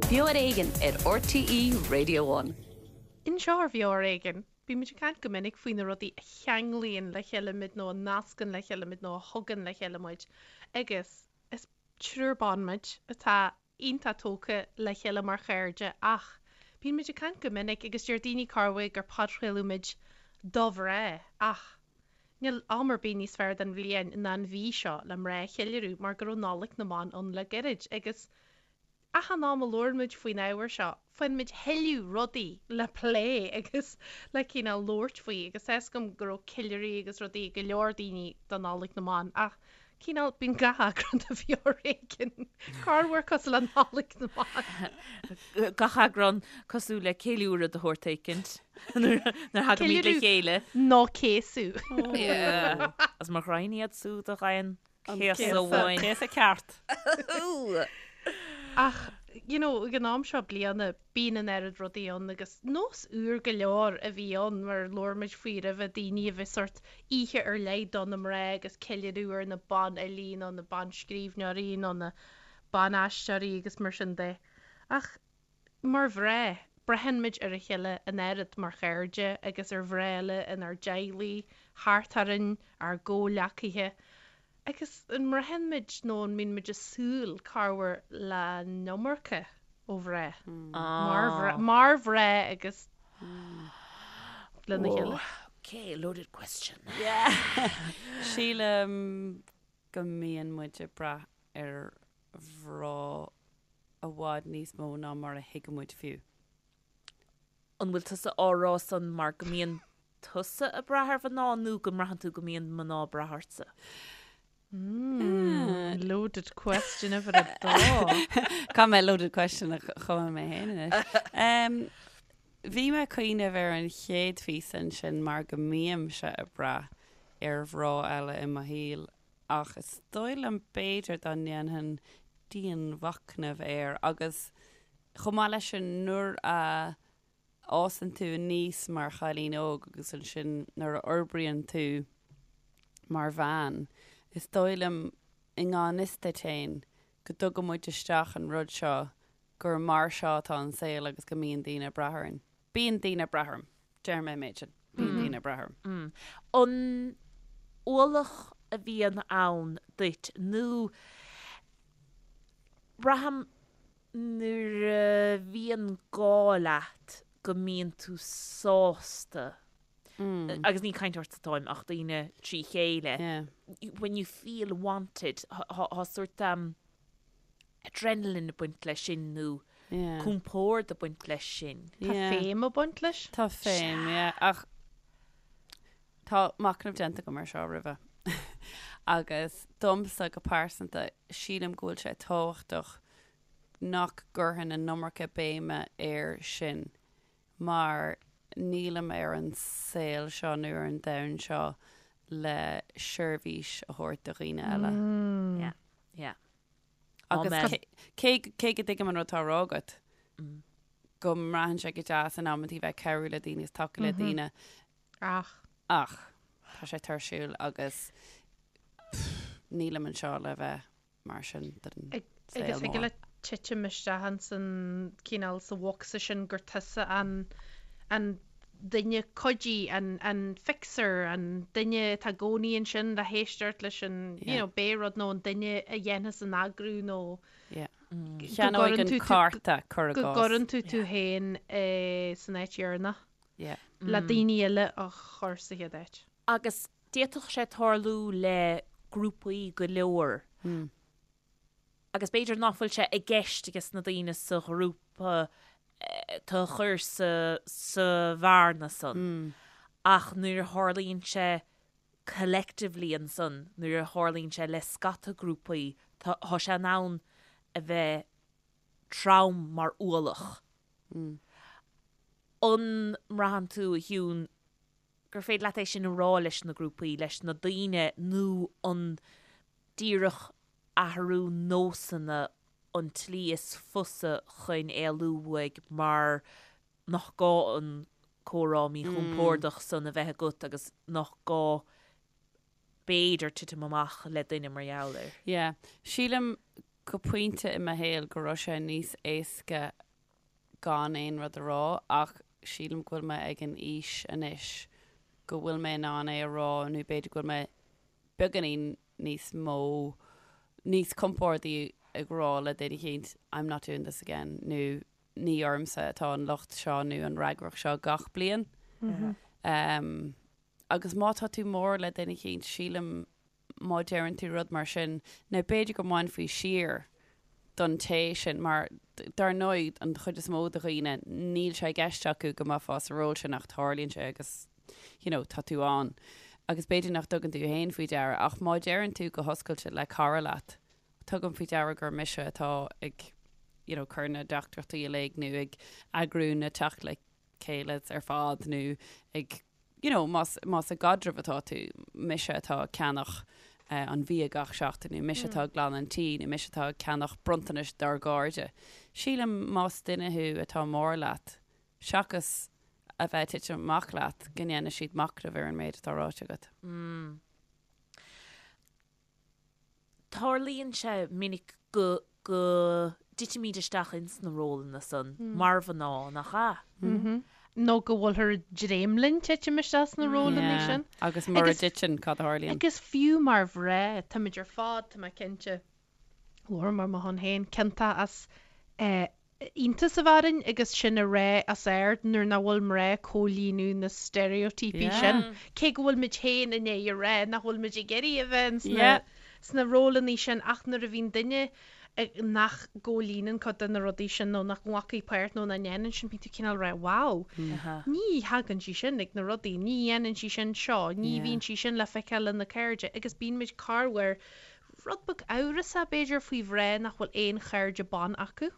Beo ar Éigean ar RTÉ Radio One. Anseo ar Bheo ar Éigean, bímid ag caint go minic faoi na rudaí a cheanglaíonn le chéile muid nó a nascann le chéile muid nó a thugann le chéile muid agus is triúr ban muid atá iontach tógtha le chéile mar chairde ach bíonn muid ag caint go minic agus deir daoine corruair gur podchraoladh muid do mhná ach níl am ar bith níos fearr den bhliain ná an mhí seo le mná a cheiliúradh mar go raibh Nollaig na mBan ann le gairid agus achan am a labhrann muid faoin ábhar seo faigheann muid tuilleadh rudaí le plé agus le cineál labhairt faoi agus tá 'fhios agam go raibh ceiliúraí agus rudaí ag go leor daoine do Nollaig na mBan ach Cineál, bíonn gach eagrán de Bheo ar Éigean corruair cosúil le Nollaig na mBan. Gach eagrán cosúil le ceiliúradh de shórt éicint nuair a thagaimid le chéile. Nó céasadh. Is mo ghraidhin iad súd a ghaibheann céasadh uainn. Céasadh ceart. Ach, you know, ag an am seo bliana, bíonn an oiread rudaí ann agus nós úr go leor a bhí ann mar labhair muid faoi roimhe, daoine a bheith sórt oíche ar leith do na mná agus ceiliúradh ar na banfhilí nó na banscríbhneoirí nó na ban-aisteoirí agus mar sin de. Ach mar mhná, braitheann muid ar a chéile an oiread mar chairde agus ar mhná eile inár dteaghlaigh, thart orainn, ár gcomhghleacaithe. Agus an mbraitheann muid nó an mbíonn muid ag súil corruair le an iomarca ó mhná? Mar mar mhná agus lena chéile? Ok, loaded question. Sílim go mbíonn muid ag brath ar mhná i bhfad níos mó ná mar a thuigeann muid fiú. An bhfuil tusa á rá san mar go mbíonn tusa ag brath ar mhná nó go mbraitheann tú go mbíonn mná ag brath ortsa? Mmm, loaded question uimhir a dó. Caithfidh mé loaded question a chumadh mé féin anois. Bhí mé ag cuimhneamh ar an chéad phíosa ansin mar go mbímse ag brath ar mhná eile i mo shaol ach is dóigh liom b'fhéidir dá ndéanfainn dianmhachnamh air agus chomh maith leis sin nuair a fhásann tú aníos mar chailín óg agus ansin nuair a fhorbraíonn tú mar bhean, is dóigh liom i ngan fhios duit féin go dtugann muid isteach an rud seo gur mar seo atá an saol agus go mbíonn daoine ag brath orainn. Bíonn daoine ag brath orm. Déarfaidh mé an méid sin. Bíonn daoine ag brath orm. An ualach a bhíonn ann duit nó braithim Nuair a bhíonn gá leat go mbíonn tú sásta, agus ní ag caint ortsa atáim ach daoine trí chéile, when you feel wanted, tá sórt adrenaline ag baint leis sin nó compord ag baint leis sin. Tá féim ag baint leis. Tá féim, yeah, ach tá machnamh déanta agam ar seo roimhe agus domsa go pearsanta sílim go bhfuil sé tábhachtach nach gcuirfinn an iomarca béime air sin mar nílim ar an saol seo nó ar an domhan seo le seirbhís a thabhairt do dhaoine eile. Yeah, yeah. Agus Amen. cé cé go dtuigim an rud atá á rá agat, go mbraitheann sé go deas in amantaí bheith ag cabhrú le daoine is tacú le daoine, Ach. ach tá sé tuirsiúil agus pff, nílim anseo le bheith mar sin den saol Agus thig mór. leat titim isteach ins an cineál sa bhocsa sin gur tusa an an duine cuidí, an an fixer, an duine atá i gcónaí ansin le héisteacht leis an you Yeah. know pé rud nó an duine a dhéanfas an eagrú nó Yeah. go Cheannóidh gcuireann an tú tú cárta, cuir i go gcás. gcuireann tú tú féin eh, san áit dheireanach Yeah. le daoine eile a chur sa chéad áit. Agus D'fhéadfadh sé tarlú le grúpaí go leor agus b'fhéidir nach bhfuil sé i gceist ages na daoine sa ghrúpa tú a chur sa sa bhearna san ach nuair a tharlaíonn sé collectively ansan, nuair a tharlaíonn sé le scata grúpaí, tá sé in ann a bheith trom mar ualach. An mbraitheann tú, a Shiún, gur féidir leat é sin a rá leis na grúpaí, leis na daoine nó an díreach athrú nósanna an tslí is fusa chun éalú uaidh mar nach gá an comhrá míchompordach san a bheith agat agus nach gá b'fhéidir titim amach le duine mar gheall air. Yeah. Sílim. go pointe i mo shaol go raibh sé níos éasca gan aon rud a rá ach sílim go bhfuil mé ag an aois anois go bhfuil mé in ann é a rá nó b'fhéidir go bhfuil mé beagáinín níos mó, níos compordaí ag rá le duine eicínt I'm not doing this again nó ní ormsa atá an locht seo nó an fhreagracht seo gach bliain. Agus má tá tú mór le duine eicínt, sílim má deireann tú rud mar sin, nó b'fhéidir go mbainfí siar don té sin, mar dar ndóigh an chuid is mó de dhaoine níl sé i gceist acu go mbeifeá sa ról sin ach tarlaíonn sé agus you know tá tú ann. Agus b'fhéidir nach dtugann tú féin faoi deara ach má deireann tú go hoscailte le cara leat, tugaim faoi deara gur mise atá ag you know cur na dteachtaireachtaí uilig nó ag eagrú na teacht le chéile ar fad nó ag you know más más i gcaidreamh atá tú, mise atá ag ceannach an bhia gach seachtain nó mise atá ag glanadh an tí nó mise atá ag ceannach bronntanais dár gcairde. Sílim más duine thú atá mór leat, seachas a bheith ag titim amach leat, go ndéanfaidh siad machnamh ar an méid atá ráite agat. Tarlaíonn sé minic go go dtitimid isteach ins na rólanna san mar mhná, nach ea? Nó go bhfuilthear ag dréim linn titim isteach sna rólanna sin. Agus mura dtiteann, cad a tharlaíonn? Agus fiú mar mhná, táimid ar fad, tá mé cinnte, labhraím ar mo shon féin, ciontach as iontas a bheith orainn agus sin a rá os ard nuair nach bhfuil mná ag comhlíonadh na steiréitíopaí sin, cé go bhfuil muid féin i ndiaidh a rá nach bhfuil muid ag iarraidh a bheith sna rólanna sin ach nuair a bhíonn duine nach gcomhlíonann cuid de na rudaí sin nó nach nglacfaidh páirt nó nach ndéanann sin, bíonn tú cineál ag rá wow, ní thagann sí sin ag na rudaí, ní dhéanann sí sin seo, ní bhíonn sí sin le feiceáil lena cairde agus bíonn muid corruair Rud beag amhrasach, b'fhéidir, faoi mhná nach bhfuil aon chairde ban acu.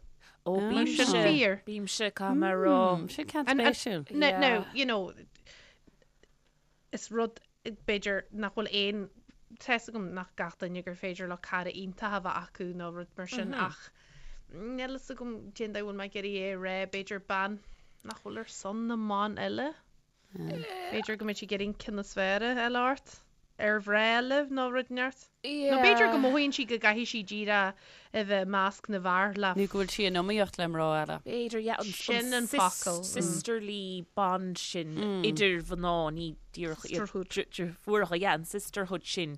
Ó, bímse, Sin fíor. bímse, caithfidh mé a rá. Sin ceann spéisiúil. Now, you know, is rud, b'fhéidir, nach bhfuil aon, tá 'fhios agam nach gach duine gur féidir leo cara iontach a bheith acu nó rud mar sin ach níl 'fhios agam cén dóigh a bhfuil mé ag iarraidh é a rá, b'fhéidir bean nach bhfuil ar son na mban eile. B'fhéidir go mbeidh sí ag iarraidh an ceann is fearr a fháil ort, ar mhná eile nó rud inteacht. Nó b'fhéidir go mothaíonn sí go gcaithfidh sí díreach a bheith i measc na bhfear le. Nó go bhfuil sí in iomaíocht le mná eile. B'fhéidir, yeah, an Sin an focal. sisterly bond sin idir mhná, ní díreach iad Sisterhood. deirfiúracha, yeah, an sisterhood sin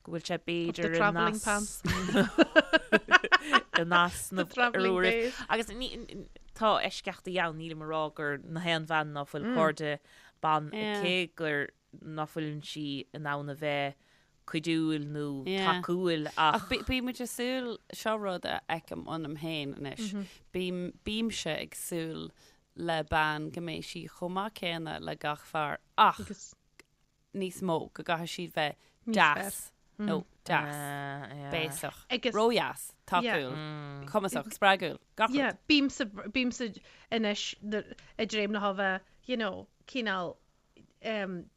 go bhfuil sé Of the b'fhéidir in travelling pants. in easnamh The travelling ar uairibh. days. Agus ní, tá eisceachtaí ann, nílim ag rá gur na haon bhean ná fuil cairde ban Yeah. aici gur ná fuileann sí in ann a bheith cuidiúil nó Yeah. tacúil Ach ach bí- bímid ag súil, seo rud a fheicim ionam féin anois, bím, bímse ag súil le bean go mbeidh sí chomh maith céanna le gach fear ach Agus níos mó, go gcaithfidh siad bheith Níos deas nó deas, Ah, béasach, Agus- ródheas, tacúil, cumasach, spreagúil, gach Yeah, rud. bímse, bímse anois ag dréim leo a bheith, you know, cineál um,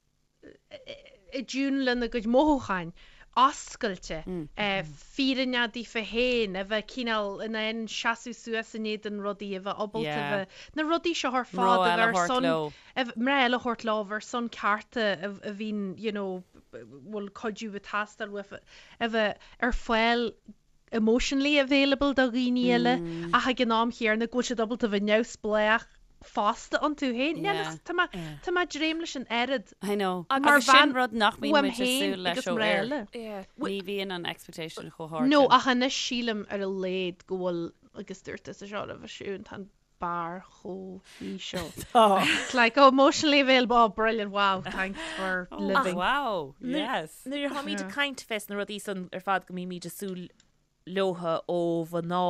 i dtiún lena gcuid mothúcháin, oscailte, fírinneach daofa féin, a bheith cineál in ann seasamh suas in éadan rudaí, a bheith ábalta Yeah. a bheith, na rudaí seo ar Mná fad a eile a bheith ar thabhairt son leo. Mná eile a thabhairt leo ar son cearta a bhíonn you know bhfuil cuidiú ag teastáil uafa, a bheith ar fáil emotionally available do dhaoine eile ach ag an am chéanna go bhfuil siad ábalta a bheith neamhspleách fosta iontu féin. Yeah. Tá mé tá mé ag dréim leis an oiread I know. Mar Agus sin bhean rud nach mbíonn uaim muid ag féin súil leis agus ó mná fhir. eile. Yeah. Ní bhíonn an expectation chomh hard No sin. ach anois sílim ar a laghad go bhfuil agus dúirt tusa seo roimhe Siún tá an barr chomh híseal. It's like, oh, emotionally available, oh, brilliant, wow, thanks for living. Wow, yes. Nuair a tháimid ag caint fés na rudaí san ar fad go mbímid ag súil leotha ó mhná,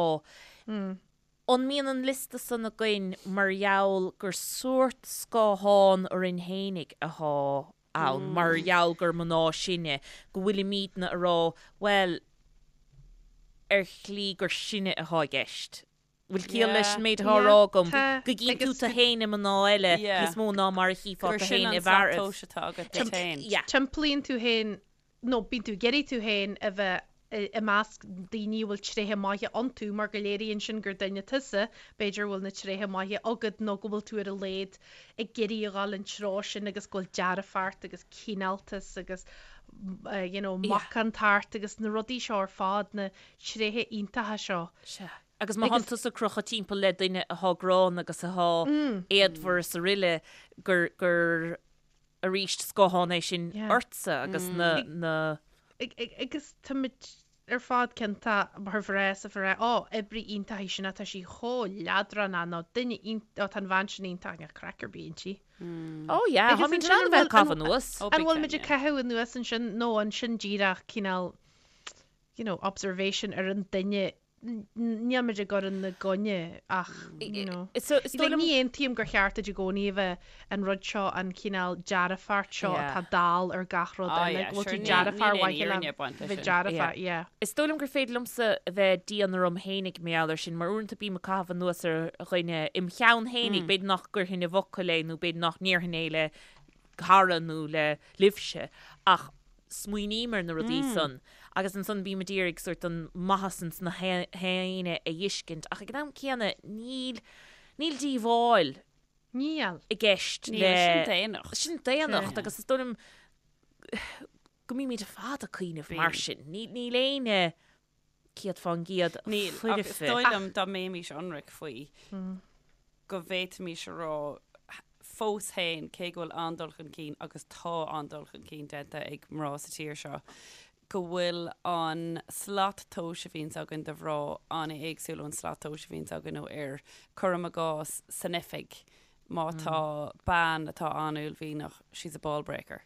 an mbíonn an liosta san againn mar gheall gur sórt scáthán orainn fhéinig athá ann, mar gheall gur mná sinne, go bhfuilimídne a rá, bhuel, ar shlí gur sinne athá i gceist. Bhfuil ciall leis an méid atá á rá agam? Go gcíonn tú tú féin i mná eile níos mó ná mar a chífeá Gur tú sin féin an i bhfearaibh. slat tomhais atá agat duit féin. Timplaíonn tú féin, nó bíonn tú ag iarraidh tú féin a bheith. i measc daoine a bhfuil tréithe maithe iontu mar go léiríonn sin gur duine tusa, b'fhéidir, a bhfuil na tréithe maithe agat nó go bhfuil tú ar a laghad ag iarraidh a dhul an treo sin agus go bhfuil dearfacht agus cineáltas agus you know macántacht agus na rudaí seo ar fad, na tréithe iontacha seo. Sea. Agus má thánn tusa ag crochadh timpeall le duine athá gránna agus athá éadmhar is aroile gur, gur arís scáthán é sin ortsa agus na, na. Agus táimid ar fad cinnte mar mhná is a bheith á, oibrí iontach í sin, tá sí chomh leadránach nó duine iontach, tá an bhean sin iontach, níl craic ar bith inti. Ó yeah, táimid in ann a bheith ag caitheamh anuas. An bhfuil muid ag caitheamh anuas ansin nó an sin díreach cineál, you know, observation ar an duine Níl muid ag cur ina gcoinne ach, you know. Is dóigh liom. Ní aontaím gur cheart duit i gcónaí a bheith an rud seo, an cineál dearfacht seo atá dall ar gach rud eile, go bhfuil tú dearfach ar mhaithe le bheith dearfach, yeah. Is dóigh liom gur féidir liomsa a bheith dian orm fhéinig mar gheall air sin, mar uaireanta bím ag caitheamh anuas ar dhuine im cheann fhéinig, b'fhéidir nach gcuirfinn i bhfocail é nó b'fhéidir nach ndéarfainn é le cara nó le libhse, ach smaoiním ar na rudaí san agus ansan bím a d'iarraidh sórt an maitheas ins na héinne a fheiscint ach ag an am céanna níl, níl díobháil Níl. i gceist le. Níl, sin daonnacht. Sin daonnacht agus is dóigh liom go mbímid ar fad ag cuimhneamh mar sin. Níl éinne 100% Níl, ach is foirfe. dóigh liom dá mbeimis ionraic faoi go bhféadfaimis a rá fós féin, cé go bhfuil an-dul chun cinn agus tá an-dul chun cinn déanta ag mná sa tír seo, go bhfuil an slat tomhais a bhíonns againn do mhná an-éagsúil ón slat tomhais a bhíonns againn ó fhir. Cuirim i gcás, san oifig, má tá bean atá an-uaillmhianach, she's a ball breaker.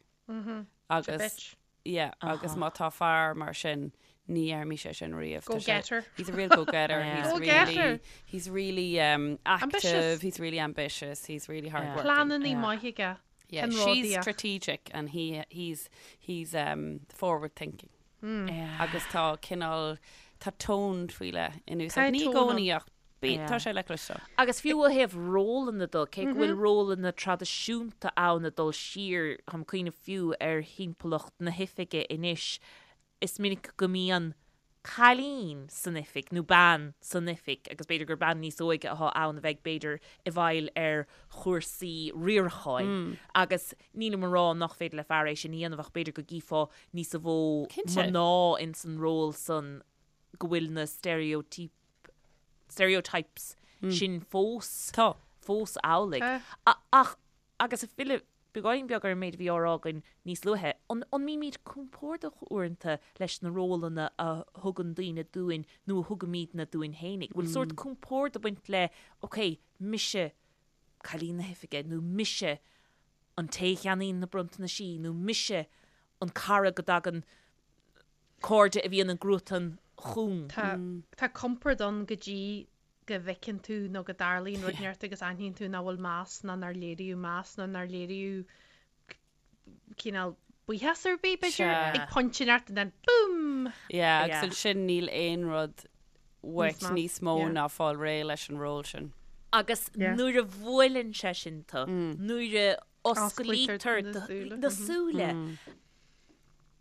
Agus. Bitch. Yeah, agus má tá fear mar sin, ní dhéarfaimis é sin riamh. Go getter. He's a real go-getter. Yeah. He's Go-getter. really, he's really um, active, Ambitious. he's really ambitious, he's really hardworking. Pleananna maithe aige. Yeah, she's strategic and he, he's, he's um, forward thinking. Yeah. Agus tá cineál, tá tone faoi leith in úsáid. Tá Ní i tone gcónaí ach Bí, Yeah. tá sé le cloisteáil. Agus fiú ó thaobh rólanna de, cé go bhfuil rólanna traidisiúnta ann ag dul siar, táim ag cuimhneamh fiú ar thimpeallacht na hoifige anois, is minic go mbíonn cailín san oifig nó bean san oifig agus b'fhéidir gur bean níos óige atá ann a bheidh b'fhéidir i bhfeighil ar chúrsaí riaracháin agus nílim ag rá nach féidir le fear é sin a dhéanamh ach b'fhéidir go gcífeá níos mó Cinnte. mná ins an ról san go bhfuil na steiréitíopaí stereotypes sin fós Tá. fós amhlaidh. Tá. Ach, agus ag filleadh beagáinín beag ar an méid a bhí á rá againn níos luaithe, an an mbímid compordach uaireanta leis na rólanna a thugann daoine dúinn nó a thugaimidne dúinn fhéinig? Bhfuil sórt compord ag baint le, ok, mise cailín na hoifige nó mise an té a cheannaíonn na bronntanaisí nó mise an cara go dtagann cairde a bhíonn i gcruatan chugam. Tá tá compord ann go dtí go bhfeiceann tú nó go dtarlaíonn rud inteacht agus aithníonn tú nach bhfuil meas ná nár léiríodh meas nó nár léiríodh cineál buíochas ar bith, b'fhéidir, Sea. ag pointe inteacht and then boom! Yeah, agus Yeah. ansin níl aon rud uait Níos meas, níos mó yeah. ná fáil réidh leis an ról sin. Agus Yeah. nuair a bhuaileann sé sin tú, nuair a Osclaítear osclaítear na súile. na súile,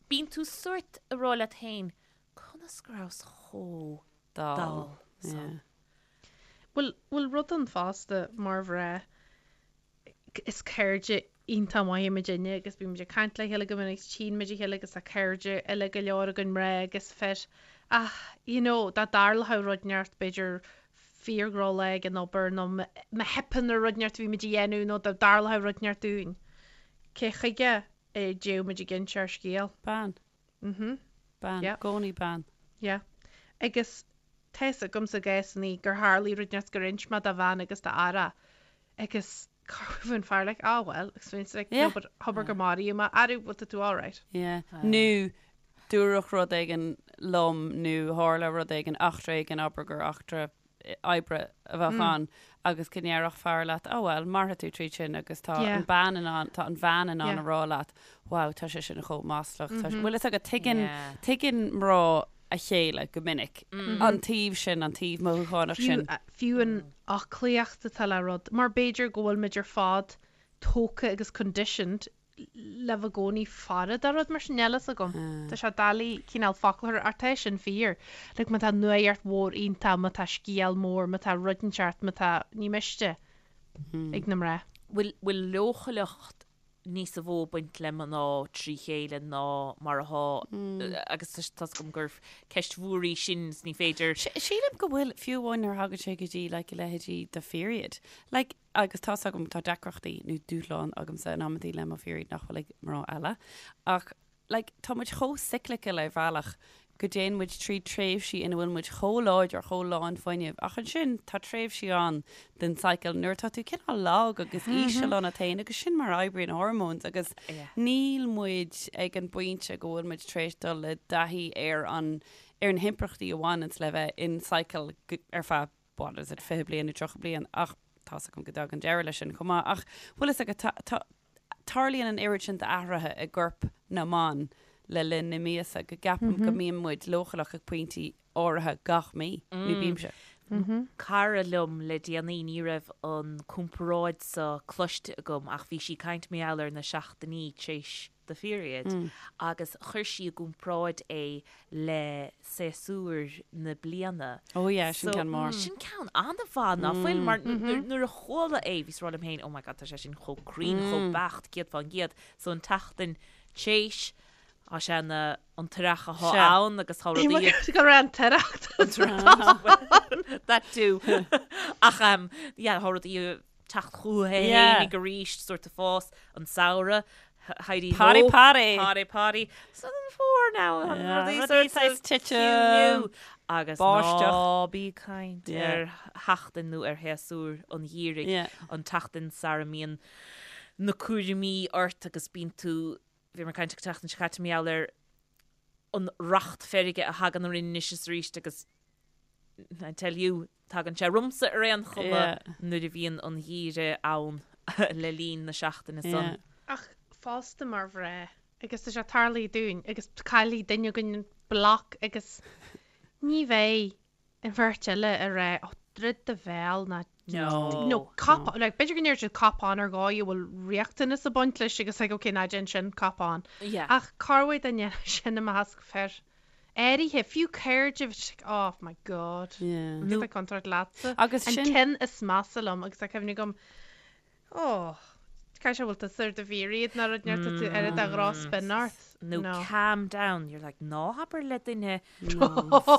Bíonn tú sórt ag rá leat féin, conas go rabhas chomh Dall. dall san? Bhfuil, bhfuil rud ann fosta mar mhná, is cairde iontach maithe muidinne agus bíonn muid ag caint le chéile go minic, tchíonn muid a chéile agus tá cairde eile go leor againn mná agus fir ach you know dá dtarlódh rud inteacht b'fhéidir fíordhroch-lá ag an obair nó má theipeann ar rud inteacht a bhí muid a dhéanamh nó dá dtarlódh rud inteacht dúinn, cé chuige a dtéadh muid ag inse ár scéal. Bean. Mhm. Bean. Yeah. Gcónaí bean. Yeah. Agus tá fhios agamsa i gcásannaí gur tharlaigh rud inteacht gur inis mé do bhean agus d'fhear agus bhí an fear like, ah well, agus bhí like, Yeah. no but abair gur maraíodh mé, arú, bhfuil tú alright? Yeah. Nó dúradh rud éigin liom nó tharla rud éigin, eachtra éigin, abair gur eachtra oibre a bheadh ann agus go ndéarfadh fear leat, oh well, mairfidh tú tríd sin agus tá an bean in ann, tá an bhean in ann a rá leat, wow, tá sé sin chomh maslach. Tá sé, bhfuil fhios agat, tuigeann, tuigeann mná a chéile go minic, an taobh sin, an taobh mothúchánach sin. Fiú an fhoclaíocht atá le rud, mar b'fhéidir go bhfuil muid ar fad tógtha agus conditioned. le bheith i gcónaí faire do rud mar sin, níl fhios agam. Tá sé doiligh cineál focal a chur ach tá sin fíor. Like má tá nuaíocht mhór iontach, má tá scéal mór, má tá rud inteacht, má tá, ní miste ag na mná. Bhfuil, bhfuil leochaileacht níosa mhó ag baint le mná trí chéile ná mar athá agus tá 's agam gur ceist mhór í sin is ní féidir. Sílim go bhfuil, fiú amháin nuair a thagann sé go dtí like a leithéidí do period. Like agus tá's agam tá deacrachtaí nó dúshláin agamsa in amantaí le mo period nach bhfuil ag mná eile ach like tá muid chomh cyclical ar bhealach go dtéann muid trí tréimhsí ina bhfuil muid chomh láidir, chomh lán fuinnimh ach ansin tá tréimhsí ann den cycle nuair atá tú cineál lag agus íseal ionat féin agus sin mar a oibríonn hormones agus níl muid ag an bpointe go bhfuil muid tar éis dul i dtaithí ar an ar na himpleachtaí a bhaineanns le bheith in cycle ar feadh what is it, 20 bliain nó 30 bliain ach tá's agam go dtagann deireadh leis sin chomh maith ach bhfuil fhios agat tá, tá, tarlaíonn an oiread sin d'athruithe i gcorp na mban le linn na míosa go gceapaim go mbíonn muid leochaileach ag pointí áirithe gach mí, nó bímse. Cara liom le déanaí, ní raibh an comparáid seo cloiste agam ach bhí sí ag caint mar gheall ar na seachtainí tar éis do pheriod agus chuir sí i gcomparáid é le séasúir na bliana. Oh yeah, sin ceann mór. Sin ceann an-mhaith, ná fuil? Mar nuair a chuala é, bhíos ag rá liom féin, oh my god, tá sé sin chomh cruinn, chomh beacht, 100%. So an tseachtain tar éis, tá sé ina an t-earrach atá ann agus tá rudaí... Go raibh an t-earrach. That too. Ach yeah, tá rudaí teacht chucu fhéinig arís, sort of fás, an samhradh, Heidi ho. Party party! Party party. So an fómhar now, yeah, rudaí sort of titim. Agus ná bí ag caint ar sheachtain nó ar shéasúr an gheimhridh, an tseachtain sara mbíonn na cúraimí ort agus bíonn tú, bhí mé ag caint an tseachtain seo caite mar gheall ar an racht feirge a thagann orainn anois is arís agus I tell you, tagann sé ormsa ar aon chuma nuair a bhíonn an geimhreadh ann le linn na seachtaine san. Ach fosta mar mhná, agus tá sé tarlaithe dúinn, agus caillfidh duine againn an bloc agus ní bheidh an bheirt eile ag rá, oh, druid do bhéal ná No, cop on, like, b'fhéidir go ndéarfaidh siad cop on ar dhóigh a bhfuil riachtanas ag baint leis agus like, okay, ná déan sin, cop on. Ach corruair dá ndéanfadh sin i measc fir. áirithe, fiú cairde, bhí sé like, oh my god, Yeah. nó tá contúirt leatsa. Agus An sin- ceann is measa liom agus tá cuimhne agam, oh, caithfidh sé bhfuil tusa ar do pheriod nó rud inteacht tá tú ar do dhrochspin ort. Nó No. calm down, you're like, ná habair le duine No.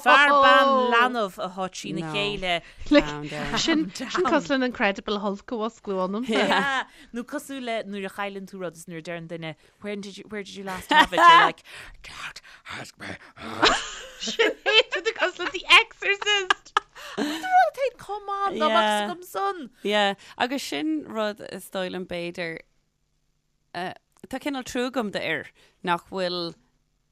fear bean leanbh atá trína No. chéile. Like, Calm down. sin, Calm sin down. cosúil le an Incredible Hulk a mhusclú ionamsa. Yeah. Nó cosúil le nuair a chailleann tú rud is nuair a deireann duine When did you, where did you last have it? You're like, don't ask me. Sin é tú cosúil le The Exorcist. Rud come on, ná Yeah. agam son. Yeah, agus sin rud is dóigh liom b'fhéidir eh, tá cineál trua agam d'fhir nach bhfuil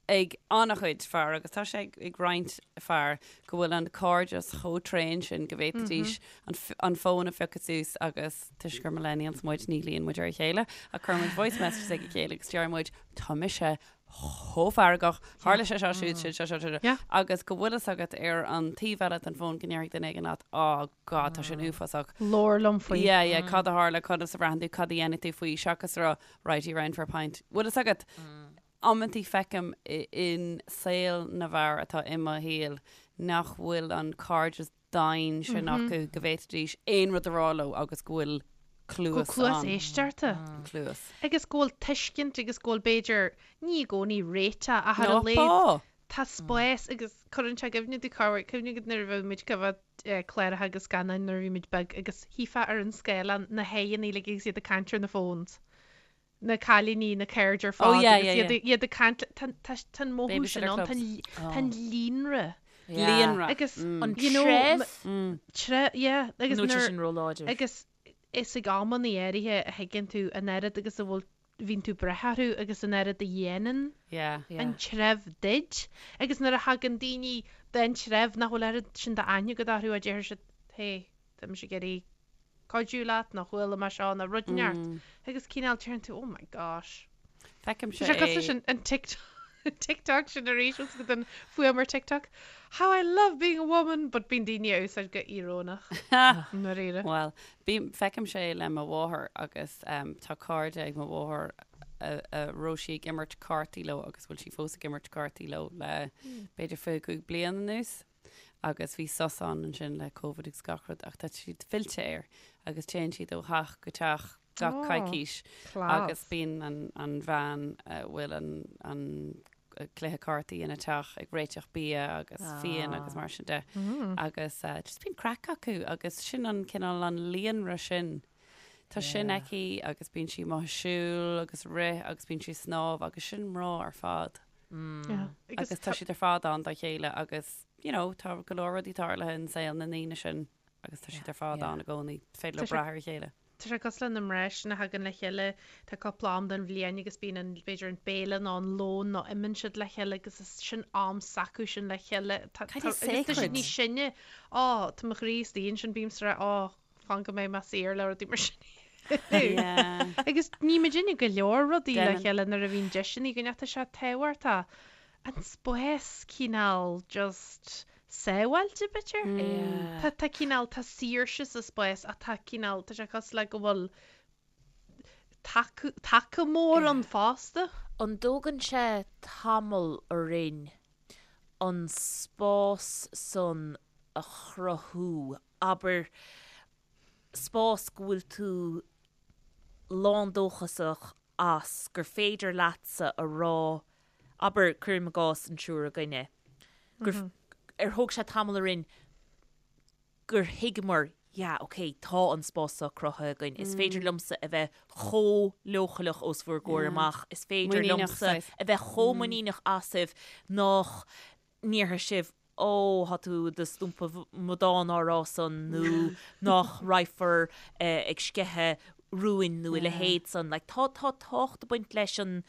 ag an-chuid fear agus tá sé ag, ag roinnt fear go bhfuil an cairdeas chomh tréan sin go bhféadfaidís an, f- an fón a phiocadh suas agus toisc gur millennials muid ní ghlaonn muid ar a chéile ach cuireann muid voice messages ag a chéile agus deir muid tá mise chomh feargach, tharla sé seo siúd sin seo seo seo Yeah. agus go bhfuil fhios agat ar an taobh eile den fón go ndéarfaidh duine éigin leat oh God tá sin uafásach. Labhair liom faoi. Yeah, yeah, cad a tharla, conas a bhraitheann tú, cad a dhéanfaidh tú faoi seachas a rá right, you round for a pint. Bhfuil fhios agat, amantaí feicim in saol na bhfear atá i mo shaol nach bhfuil an cairdeas daingean sin acu go bhféadfaidís aon rud a rá leo agus go bhfuil Go cluas cluas ann. éisteachta. Cluas. Agus go bhfuil tuiscint agus go bhfuil b'fhéidir, ní i gcónaí réiteach ach ar a Ná laghad pá! tá spás agus cuireann sé i gcuimhne domh corruair, cuimhne agat nuair a bheadh muid ag coimhéad cláracha agus scannáin nuair a bhí muid beag agus shuífeá ar an scáileán na haghaidheanna uilig agus iad ag caint ar na phones. na cailíní, na cairde ar Oh fad yeah, agus yeah, iad yeah. iad ag caint le, tá tá tá an mothú sin Babysitter ann, tá clubs. an tá an líonra Líonra. agus An you know, treibh? tre yeah agus Nó tá nuair sin róláidir. agus is ag amanna áirithe a thuigeann tú an oiread agus a bhfuil bhíonn tú ag brath orthu agus an oiread a dhéanann Yeah. Yeah. an treibh duit agus nuair a thagann daoine den treibh nach bhfuil oiread sin d'aithne agat orthu a deir siad hey tá mise ag iarraidh cuidiú leat nó chuala mé seo nó rud inteacht agus cineál deireann tú oh my gosh. Feicimse Tá sé cosúil leis é. an an TikTok TikTok sin arís os go den fuaim ar TikTok How I love being a woman but bíonn daoine á úsáid go íorónach ndáiríre. Bhuel, bím, feicimse é le mo mháthair agus tá cairde ag mo mháthair. a raibh sí ag imirt cártaí leo agus bhfuil sí fós ag imirt cártaí leo le b'fhéidir 25 bliain anuas agus bhí sos ann ansin le Covid agus gach rud ach tá siad fillte air agus téann siad ó theach go teach gach coicís agus bíonn an an bhean a bhfuil an an cluiche cártaí ina teach ag réiteach bia agus fíon agus mar sin de agus just bíonn craic acu agus sin an cineál an líonra sin. Tá sin aici agus bíonn sí amuigh ag siúl agus rith agus bíonn sí ag snámh agus sin mná ar fad. Agus tá siad ar fad ann dá chéile agus you know, tá go leor rudaí tarlaithe in saol na ndaoine sin agus tá siad ar fad ann i gcónaí, féidir leo brath ar a chéile. Tá sé cosúil le na mná sin a thagann le chéile, tá cúpla am den bhliain agus bíonn an, b'fhéidir an béile nó an lón nó imíonn siad le chéile agus is sin am s'acu sin le chéile. Tá, tá, agus tá siad níos sine. Ó, tá mo chroí istigh ansin, bímse ag rá, ó, fan go mbeidh mé saor le rudaí mar sin. Agus ní muidinne go leor rudaí le chéile nuair a bhíonn deiseanna againn ach tá sé tábhachtach an spás cineál just sábháilte b'fhéidir. Tá tá cineál tá saoirse sa spás ach tá cineál tá sé cosúil le go bhfuil taca taca mór ann fosta. An dtógann sé tamall orainn an spás san a chruthú abair, spás go bhfuil tú lándóchasach as, gur féidir leatsa a rá, abair, cuirim i gcás an triúr againne, gur, ar thóg sé tamall orainn gur thuigeamar, yeah, ok, tá an spás seo cruthaithe againn, is féidir liomsa a bheith chomh leochaileach os bhur gcomhair amach, is féidir liomsa a bheith chomh muiníneach asaibh nach ndéarfaidh sibh Ó, tá tú i do stumpa amadán á rá san nó nach raghfar ag sceitheadh rúin nó a leithéid san. Like, tá, tá tábhacht ag baint leis an,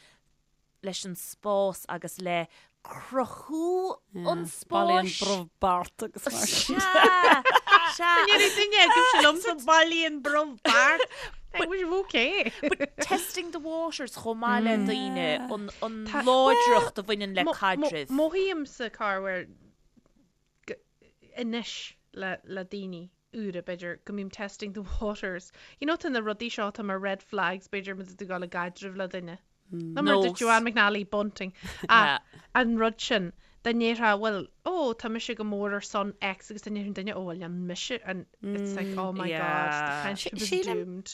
leis an spás agus le cruthú an spáis. Bailíonn brobh beart agus mar sin. Sea, sea. Ní raibh duine agaibhse liomsa bailíonn brobh beart. But we're okay. But testing the waters chomh maith le daoine, an, an láidreacht a bhaineann le caidrimh. Mothaímse corruair anois le, le daoine úra, b'fhéidir, go mbím testing the waters. You know, tá na rudaí seo atá mar red flags, b'fhéidir, má tá tú ag dul i gcaidreamh le duine. Nó mar dúirt Joanne McNally, bunting. Ach an rud sin, dá ndéarfá, bhuel, ó, tá mise go mór ar son X agus dá ndéarfadh an duine, ó, bhuel, níl mise, and it's like, oh my God, the friendship is doomed.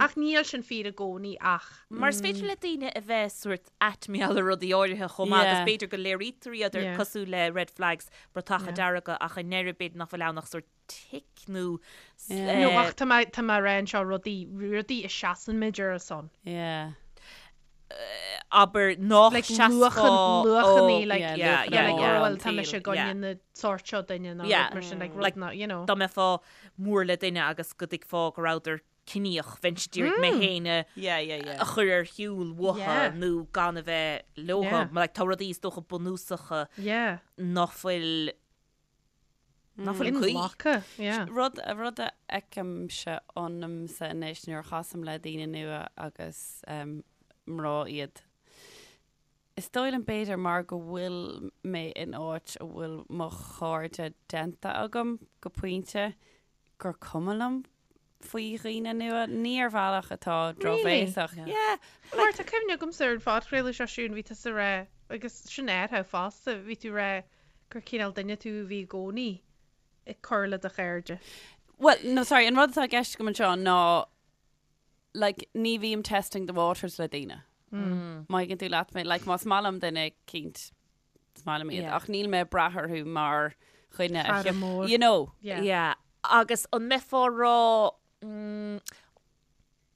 Ach níl sin fíor i gcónaí ach. Mar is féidir le daoine a bheith sórt aitmeal ar rudaí áirithe chomh maith agus b'fhéidir go léirítear iad ar cosúil le red flags, bratacha dearga ach i ndeireadh b'fhéidir nach bhfuil ann ach sórt tic nó. Nó ach tá mé tá mé ag rá anseo rudaí rudaí a seasann muid ar a son. Yeah. Abair nach Like seasfá luachan luachannaí like Yeah, yeah, luachanna yeah, like yeah. oh well tá mise i gcoinne Yeah. na sórt seo duine nó Yeah. rud mar sin like Like, rud ná you know. Dá mbeifeá mór le duine agus go dtuigfeá go rabhadar ciníoch, bheinnse d'iarraidh mé féin a Yeah, yeah, yeah. a chur ar shiúl uathu Yeah. nó gan a bheith leo. Yeah. Like tá rudaí is dócha bunúsacha Yeah. nach bhfuil Nach bhfuil cuí. Inghlactha, yeah. Rud, rud a fheicimse ionamsa anois nuair a chasaim le daoine nua agus mná iad, is dóigh liom b'fhéidir mar go bhfuil mé in áit a bhfuil mo chairde déanta agam go pointe gur cuma liom faoi dhaoine nua, ní ar bhealach atá drochbhéasach. Really? Yeah. Mar tá cuimhne agamsa ar an phodchraoladh seo Siún, bhí tusa ag rá, agus sin atá fosta, bhí tú ag rá gur cineál duine tú a bhí i gcónaí ag cur le do chairde. Well, no, sorry, an rud atá i gceist agam anseo ná, like, ní bhím testing the waters le daoine. Má thuigeann tú leat mé, like, más maith liom duine eicínt, is maith liom iad, Yeah. ach níl mé ag brath orthu mar dhuine a Cara cheap- mór. You know. Yeah. Yeah. Agus an mbeifeá ag rá, mm,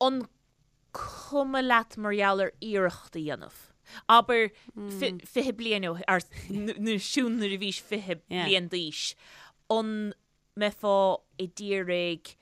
an cuma leat mar gheall ar iarracht a dhéanamh? Abair 20 bliain ó, ar, nó Siún nuair a bhís 20 Yeah. bliain d'aois, an mbeifeá ag iarraidh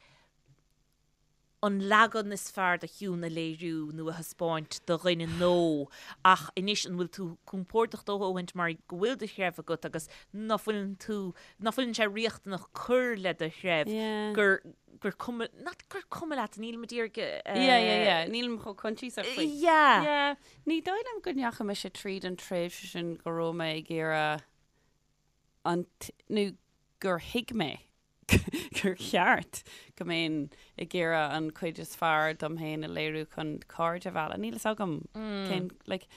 an leagan is fearr de Shiún a léiriú nó a thaispeáint do dhuine nó ach anois an bhfuil tú compordach do dhóthaint mar go bhfuil do threibh agat agus ná fuileann tú, ná fuileann sé riachtanach cur le do threibh Yeah. gur, gur cuma, not gur cuma leat, nílim ag iarraidh Yeah, yeah, yeah. Nílim chomh coinsiasach faoi. Yeah. Yeah. Ní dóigh liom go ndeachaigh mise tríd an tréimhse sin go raibh mé ag iarraidh an, nó gur thuig mé. gur cheart go mbeinn ag iarraidh an chuid is fearr dom féin a léiriú chun cairde a mhealladh. Níl fhios agam cén, like.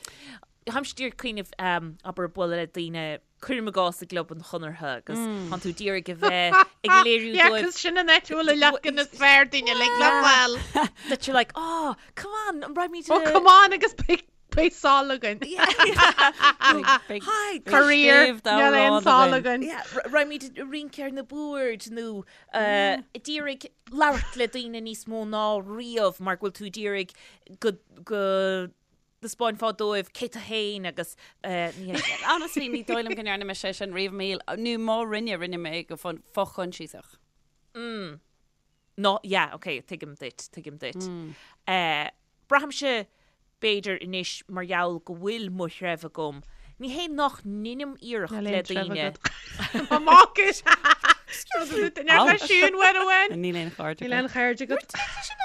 Táimse díreach ag cuimhneamh, abair, bualadh le daoine, cuirim i gcás i gClub an Chonartha agus tánn tú d'iarraidh a bheith ag léiriú Yeah, dóibh 'cause sin an áit a bhfuil an leagan is fearr dínn uilig le fáil. that you're like, oh, come on, an raghaimid Oh, come on agus beidh Beidh sál againn. Hi, Faraor, níl aon sál againn. Raghaimid ag rince ar na boird nó ag d'iarraidh labhairt le daoine níos mó ná riamh mar go bhfuil tú ag d'iarraidh go go dtaispeánfá dóibh cé tú féin agus ní hé sin. Honestly, ní dóigh liom go ndearna mise é sin riamh i mo shaol, nó má rinne, rinne mé go fo-choinsiasach. No, yeah, ok, tuigim duit, tuigim duit. Braithimse, b'fhéidir, anois mar gheall go bhfuil mo threibh agam, ní hé nach ndeinim iarracht Níl le aon treibh daoine. agat. Mo mhac is. Excuse me. Siún uair amháin. Níl aon chairde Níl aon agat. chairde agat.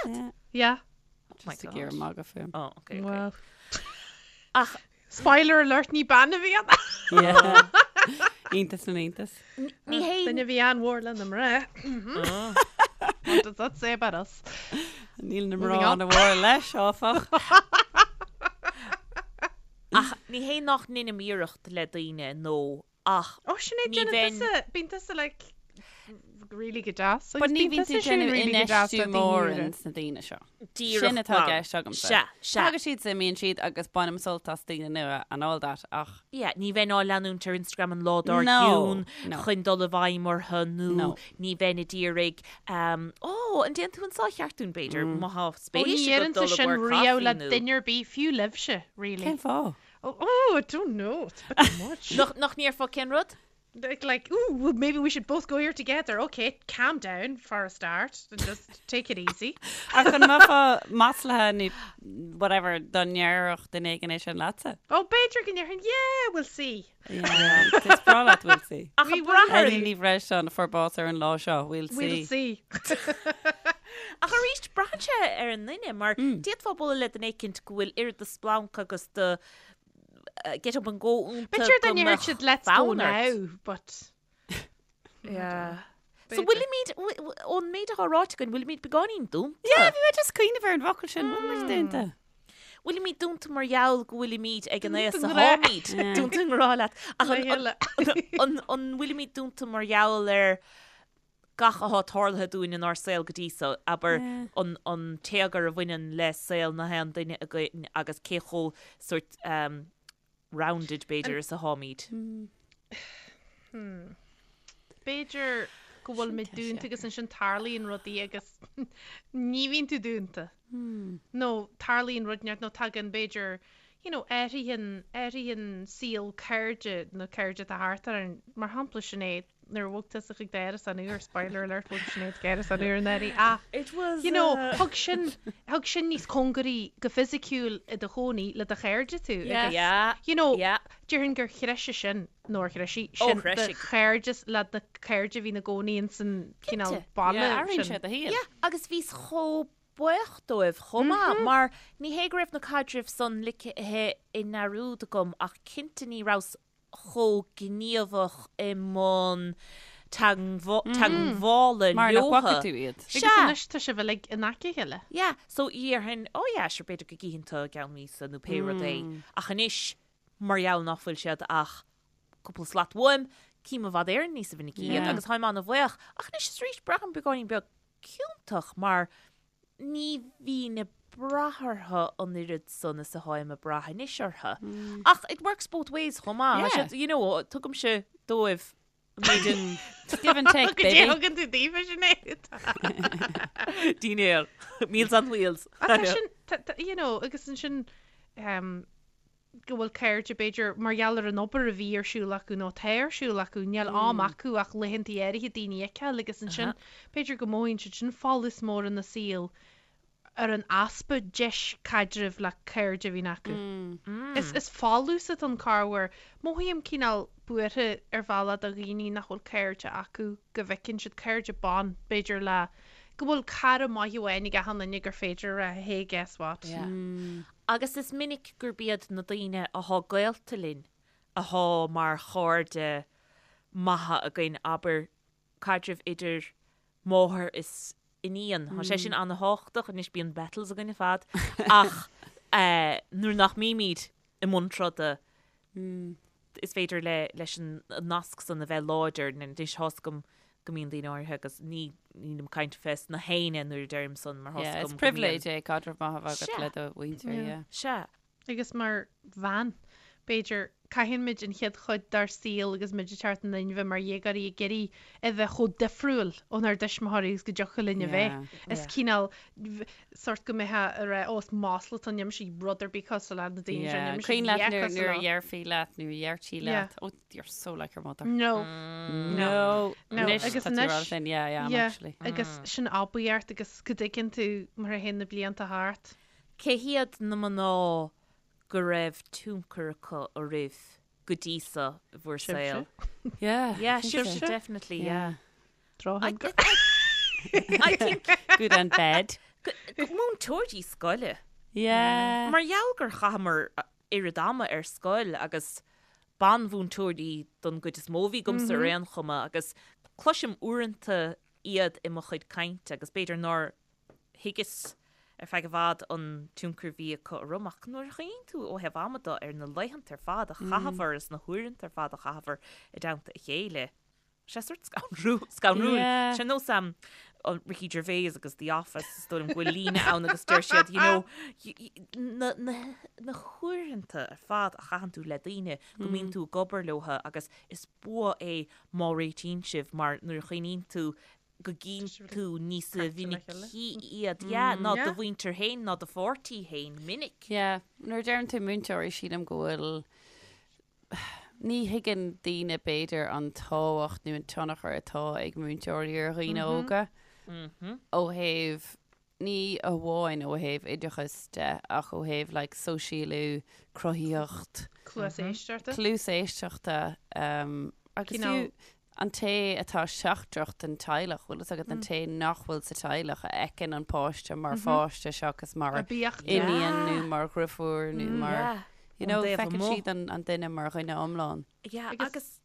Yeah. Yeah. Oh my Just ag God. iarraidh magadh fúm. Oh, ok, ok. Well. Ach Spoiler alert, ní bean a bhí ann. Yeah. Iontas na n-iontas. ní hé Duine a bhí an-mhór le na mná. What does that say about us? Níl na Moving mná on. an-mhór leis, áfach. Ach ní hé nach ndeinim iarracht le daoine nó ach Ó, Sinéad, Ní déanann bheinn- tusa, bíonn tusa like really go deas. But Agus ní bíonn bhíonn tú tusa sin déanamh really go deas infheistiú le daoine mór úra. ins na daoine seo. díreach Sin atá i glan. gceist agamsa. Sea, sea. Tagann siad, is imíonn siad agus bainim sult as daoine nua and all that ach Yeah, ní bheinn á leanúint ar Instagram an lá dár No, gcionn no. chun dul i bhfeidhm orthu nó No. ní bheinn ag iarraidh um, Ó, an ndéanann tú an sá cheart dúinn b'fhéidir, má tá Ó, spéis ní agat dhéanann dul tú i sin gcomhair riamh caife le nó- duine ar bith, fiú libhse, really. cén fáth? Oh, oh, I don't know. It's a bit too much. Nach, nach ndéarfá cén rud? Like, like, ooh, well, maybe we should both go here together. Okay, calm down for a start and just take it easy. Ach an mbeifeá maslaithe nó whatever dá ndéarfadh duine éigin é sin leatsa? Oh, b'fhéidir go ndéarfainn, yeah, we'll see. Yeah, is breá leat, we'll see. Ach We an will brath ar Eilín Ní Bhreisteáin a fuair bás ar an lá seo, we'll see. We'll see. Ach arís, braitheann sé ar an nduine, mar d'fhéadfá bualadh le duine éicint go bhfuil oiread de splanc agus de get up and go iontu B'fhéidir dá go ndéarfadh mbeadh siad let's go fonn ort. now, but... Yeah. So B'fhéidir. bhfuilimid, ón méid atá ráite againn, bhfuilimid beagáinín dúnta? Yeah, bhí mé just ag cuimhneamh ar an bhfocal sin, bhfuil muid dúnta? Bhfuilimid dúnta mar gheall go bhfuilimid ag an aos Dúnta a ngrá. tháimid. Dúnta i ngrá leat. Ach Le chéile. an bhfuilimid dúnta mar gheall ar gach atá tarlaithe dúinn inár saol go dtí so, abair, an an téagar a bhaineann le saol na haon duine againn agus cé chomh sort um, rounded b'fhéidir is atháimid. B'fhéidir go bhfuil muid dúnta agus ansin tarlaíonn rudaí agus ní bhíonn tú dúnta. Nó tarlaíonn rud inteacht nó tagann b'fhéidir you know, athraíonn athraíonn saol cairde na cairde atá thart orainn. Mar shampla Sinéad, nuair a bhog tusa chuig d'árasán úr, spoiler alert, bhog Sinéad chuig árasán úr anuraidh, ach It was you know, thug sin, thug sin níos cóngaraí go fisiciúil i do chónaí le do chairde tú. Yeah. agus, Yeah. You know, Yeah. déarfainn gur threisigh sin, nó ar threisigh Ó, sin do threisigh. chairdeas le do chairde a bhí ina gcónaí ins an cineál Cinnte. baile Yeah, athraíonn sin. sé do shaol. Yeah, agus bhíos chomh buíoch dóibh chomh maith, mar ní hé go raibh na caidrimh san ligthe i ndearúd agam ach cinnte ní rabhas chomh gníomhach i mbun teagmhála Mar nach leotha. bhfaca tú iad. Agus Sea. anois tá sibh uilig in aice a chéile. Yeah, so dhéarfainn, oh yeah, sure, b'fhéidir go gcífinn tú i gceann míosa nó pé rud é. Ach anois, mar gheall nach bhfuil siad ach cúpla slat uaim, cím i bhfad Éireann níosa mhinicí iad agus táim an-bhuíoch. Ach anois is arís, braithim beagáinín beag ciontach mar ní bhínn ag brath orthu an oiread san is atáim ag brath anois orthu. Ach it works both ways chomh maith. Yeah. Tá siad, you know, tugaimse dóibh an méid a- Give and take, Go dté baby. thugann tú daofa Sinéad. Dinnéar. Meals on wheels. Ach tá sin, tá- tá- you know, agus ansin, um, go bhfuil cairde, b'fhéidir, mar gheall ar an obair a bhí ar siúl acu nó atá ar siúl acu, níl am acu ach laethanta áirithe daoine a fheiceáil agus ansin b'fhéidir go mothaíonn siad sin folús mór ina saol ar an easpa deis caidrimh le cairde a bhíonn acu. Is is folús atá ann corruair. Mothaím cineál buartha ar bhealach do dhaoine nach bhfuil cairde acu, go bhfeiceann siad cairde ban, b'fhéidir le go bhfuil cara maith amháin ag achan duine gur féidir a rá hey guess what. Agus is minic gurb iad na daoine athá gaolta linn athá mar chairde maithe againn, abair, caidreamh idir. máthair is iníon. Tá sé sin an-thábhachtach, anois bíonn battles againn ar fad ach nuair nach mbímid i mbun troda is féidir le leis an nasc san a bheith láidir. Anois tá's agam go mbíonn daoine áirithe agus ní nílim ag caint fés na héinne nuair a deirim san mar tá's Yeah, agam is go mbíonn. privilege é caidreamh maith a bheith agat le do mhuintir, yeah. Sea. Agus mar bhean, b'fhéidir, caitheann muid an chéad chuid dár saol agus muid ag teacht in inmhe mar dhéagóirí ag iarraidh a bheith chomh difriúil ónár dtuismitheoirí agus go dtiocfadh linn a bheith. Is cineál sórt go mbeifeá ag rá, ó is masla atá ann, níl mise rud ar bith cosúil le na daoine seo, níl mise Cuimhin leat a dhath nuair cosúil nuair a leo. dhéarfaí leat, nuair a dheirtí leat, oh you're so like your mother. No. No. No. Anois Agus tá tú anois- rá sin, yeah, I am Yeah, actually. Agus sin oibiacht agus go dtuigeann tú mar a théann na blianta thart. Cé hiad na mná go raibh tionchar acu oraibh go dtí seo i bhur saol? Yeah. Yeah, I think sibhse, so. definitely, yeah. Drochthionchar. I think Good and bad. múinteoirí scoile. Yeah. Mar gheall gur chaitheamar oiread ama ar scoil agus banmhúinteoirí don gcuid is mó a bhí agamsa ar aon chuma agus cloisim uaireanta iad i mo chuid cainte agus b'fhéidir nár thuigeas ar feadh i bhfad an tionchar a bhí acu orm ach nuair a chuimhníonn tú ó thaobh ama de ar na laethanta ar fad a chaitheamar is na huaireanta ar fad a chaitheamar i dteannta a chéile, sé sórt scanrúil. Yeah. Sé nós um, Ricky Gervais agus The Office, is dóigh liom go bhfuil líne ann agus deir siad, you know, na, na, na huaireanta ar fad a chaitheann tú le daoine go mbíonn tú ag obair leo agus is bua é má réitíonn sibh mar nuair a chuimhníonn tú go gcíonn tú níos minicí iad, yeah, ná do mhuintir féin ná do pháirtí féin minic. Yeah, nuair a deireann tú múinteoirí sílim go bhfuil, ní thuigeann daoine b'fhéidir an tábhacht nó an tionchar atá ag múinteoirí ar dhaoine óga ó thaobh, ní amháin ó thaobh oideachais de ach ó thaobh like sóisialú, cruthaíocht, Cluas éisteachta. cluas éisteachta agus fiú an té atá seachtrach den teaghlach, bhfuil fhios agat, an té nach bhfuil sa teaghlach a fheiceann an páiste mar pháiste seachas mar iníon nó mar dhriofúr nó mar, you know, feiceann siad an duine mar dhuine iomlán. Yeah, agus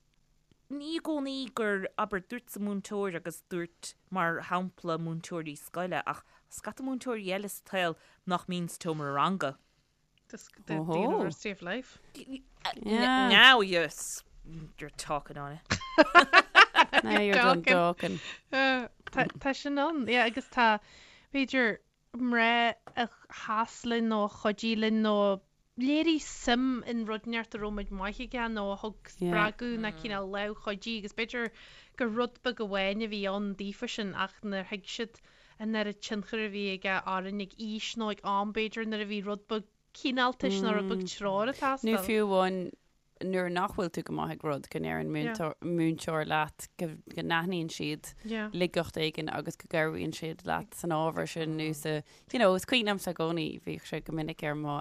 ní i gcónaí gur, abair, dúirt múinteoir agus dúirt, mar shampla, múinteoirí scoile, ach scata múinteoirí eile sa tsaol nach mbíonn sa tseomra ranga. The, the, the University of Life. Yeah. Now you're, you're talking on it. Now you're done talking. Uh, tá sin ann, yeah, agus tá b'fhéidir mná a sheas linn nó a chuidigh linn nó a léirigh suim in rud inteacht a raibh muid maith aige nó a thug spreagadh nó cineál lámh chuidí agus b'fhéidir gur rud beag amháin a bhí ann daofa sin ach nár thuig siad an oiread tionchair a bhí aige orainn ag aois nó ag am b'fhéidir nuair a bhí rud beag cineáltais nó rud beag treoir ag Nó teastáil. fiú amháin nuair nach bhfuil tú go maith ag rud, go ndeireann múinteoir leat go n-aithníonn siad laigeacht éigin agus go gcabhraíonn siad leat san ábhar sin nó sa, you know, is cuimhin liomsa i gcónaí, bhíodh sé go minic ar mo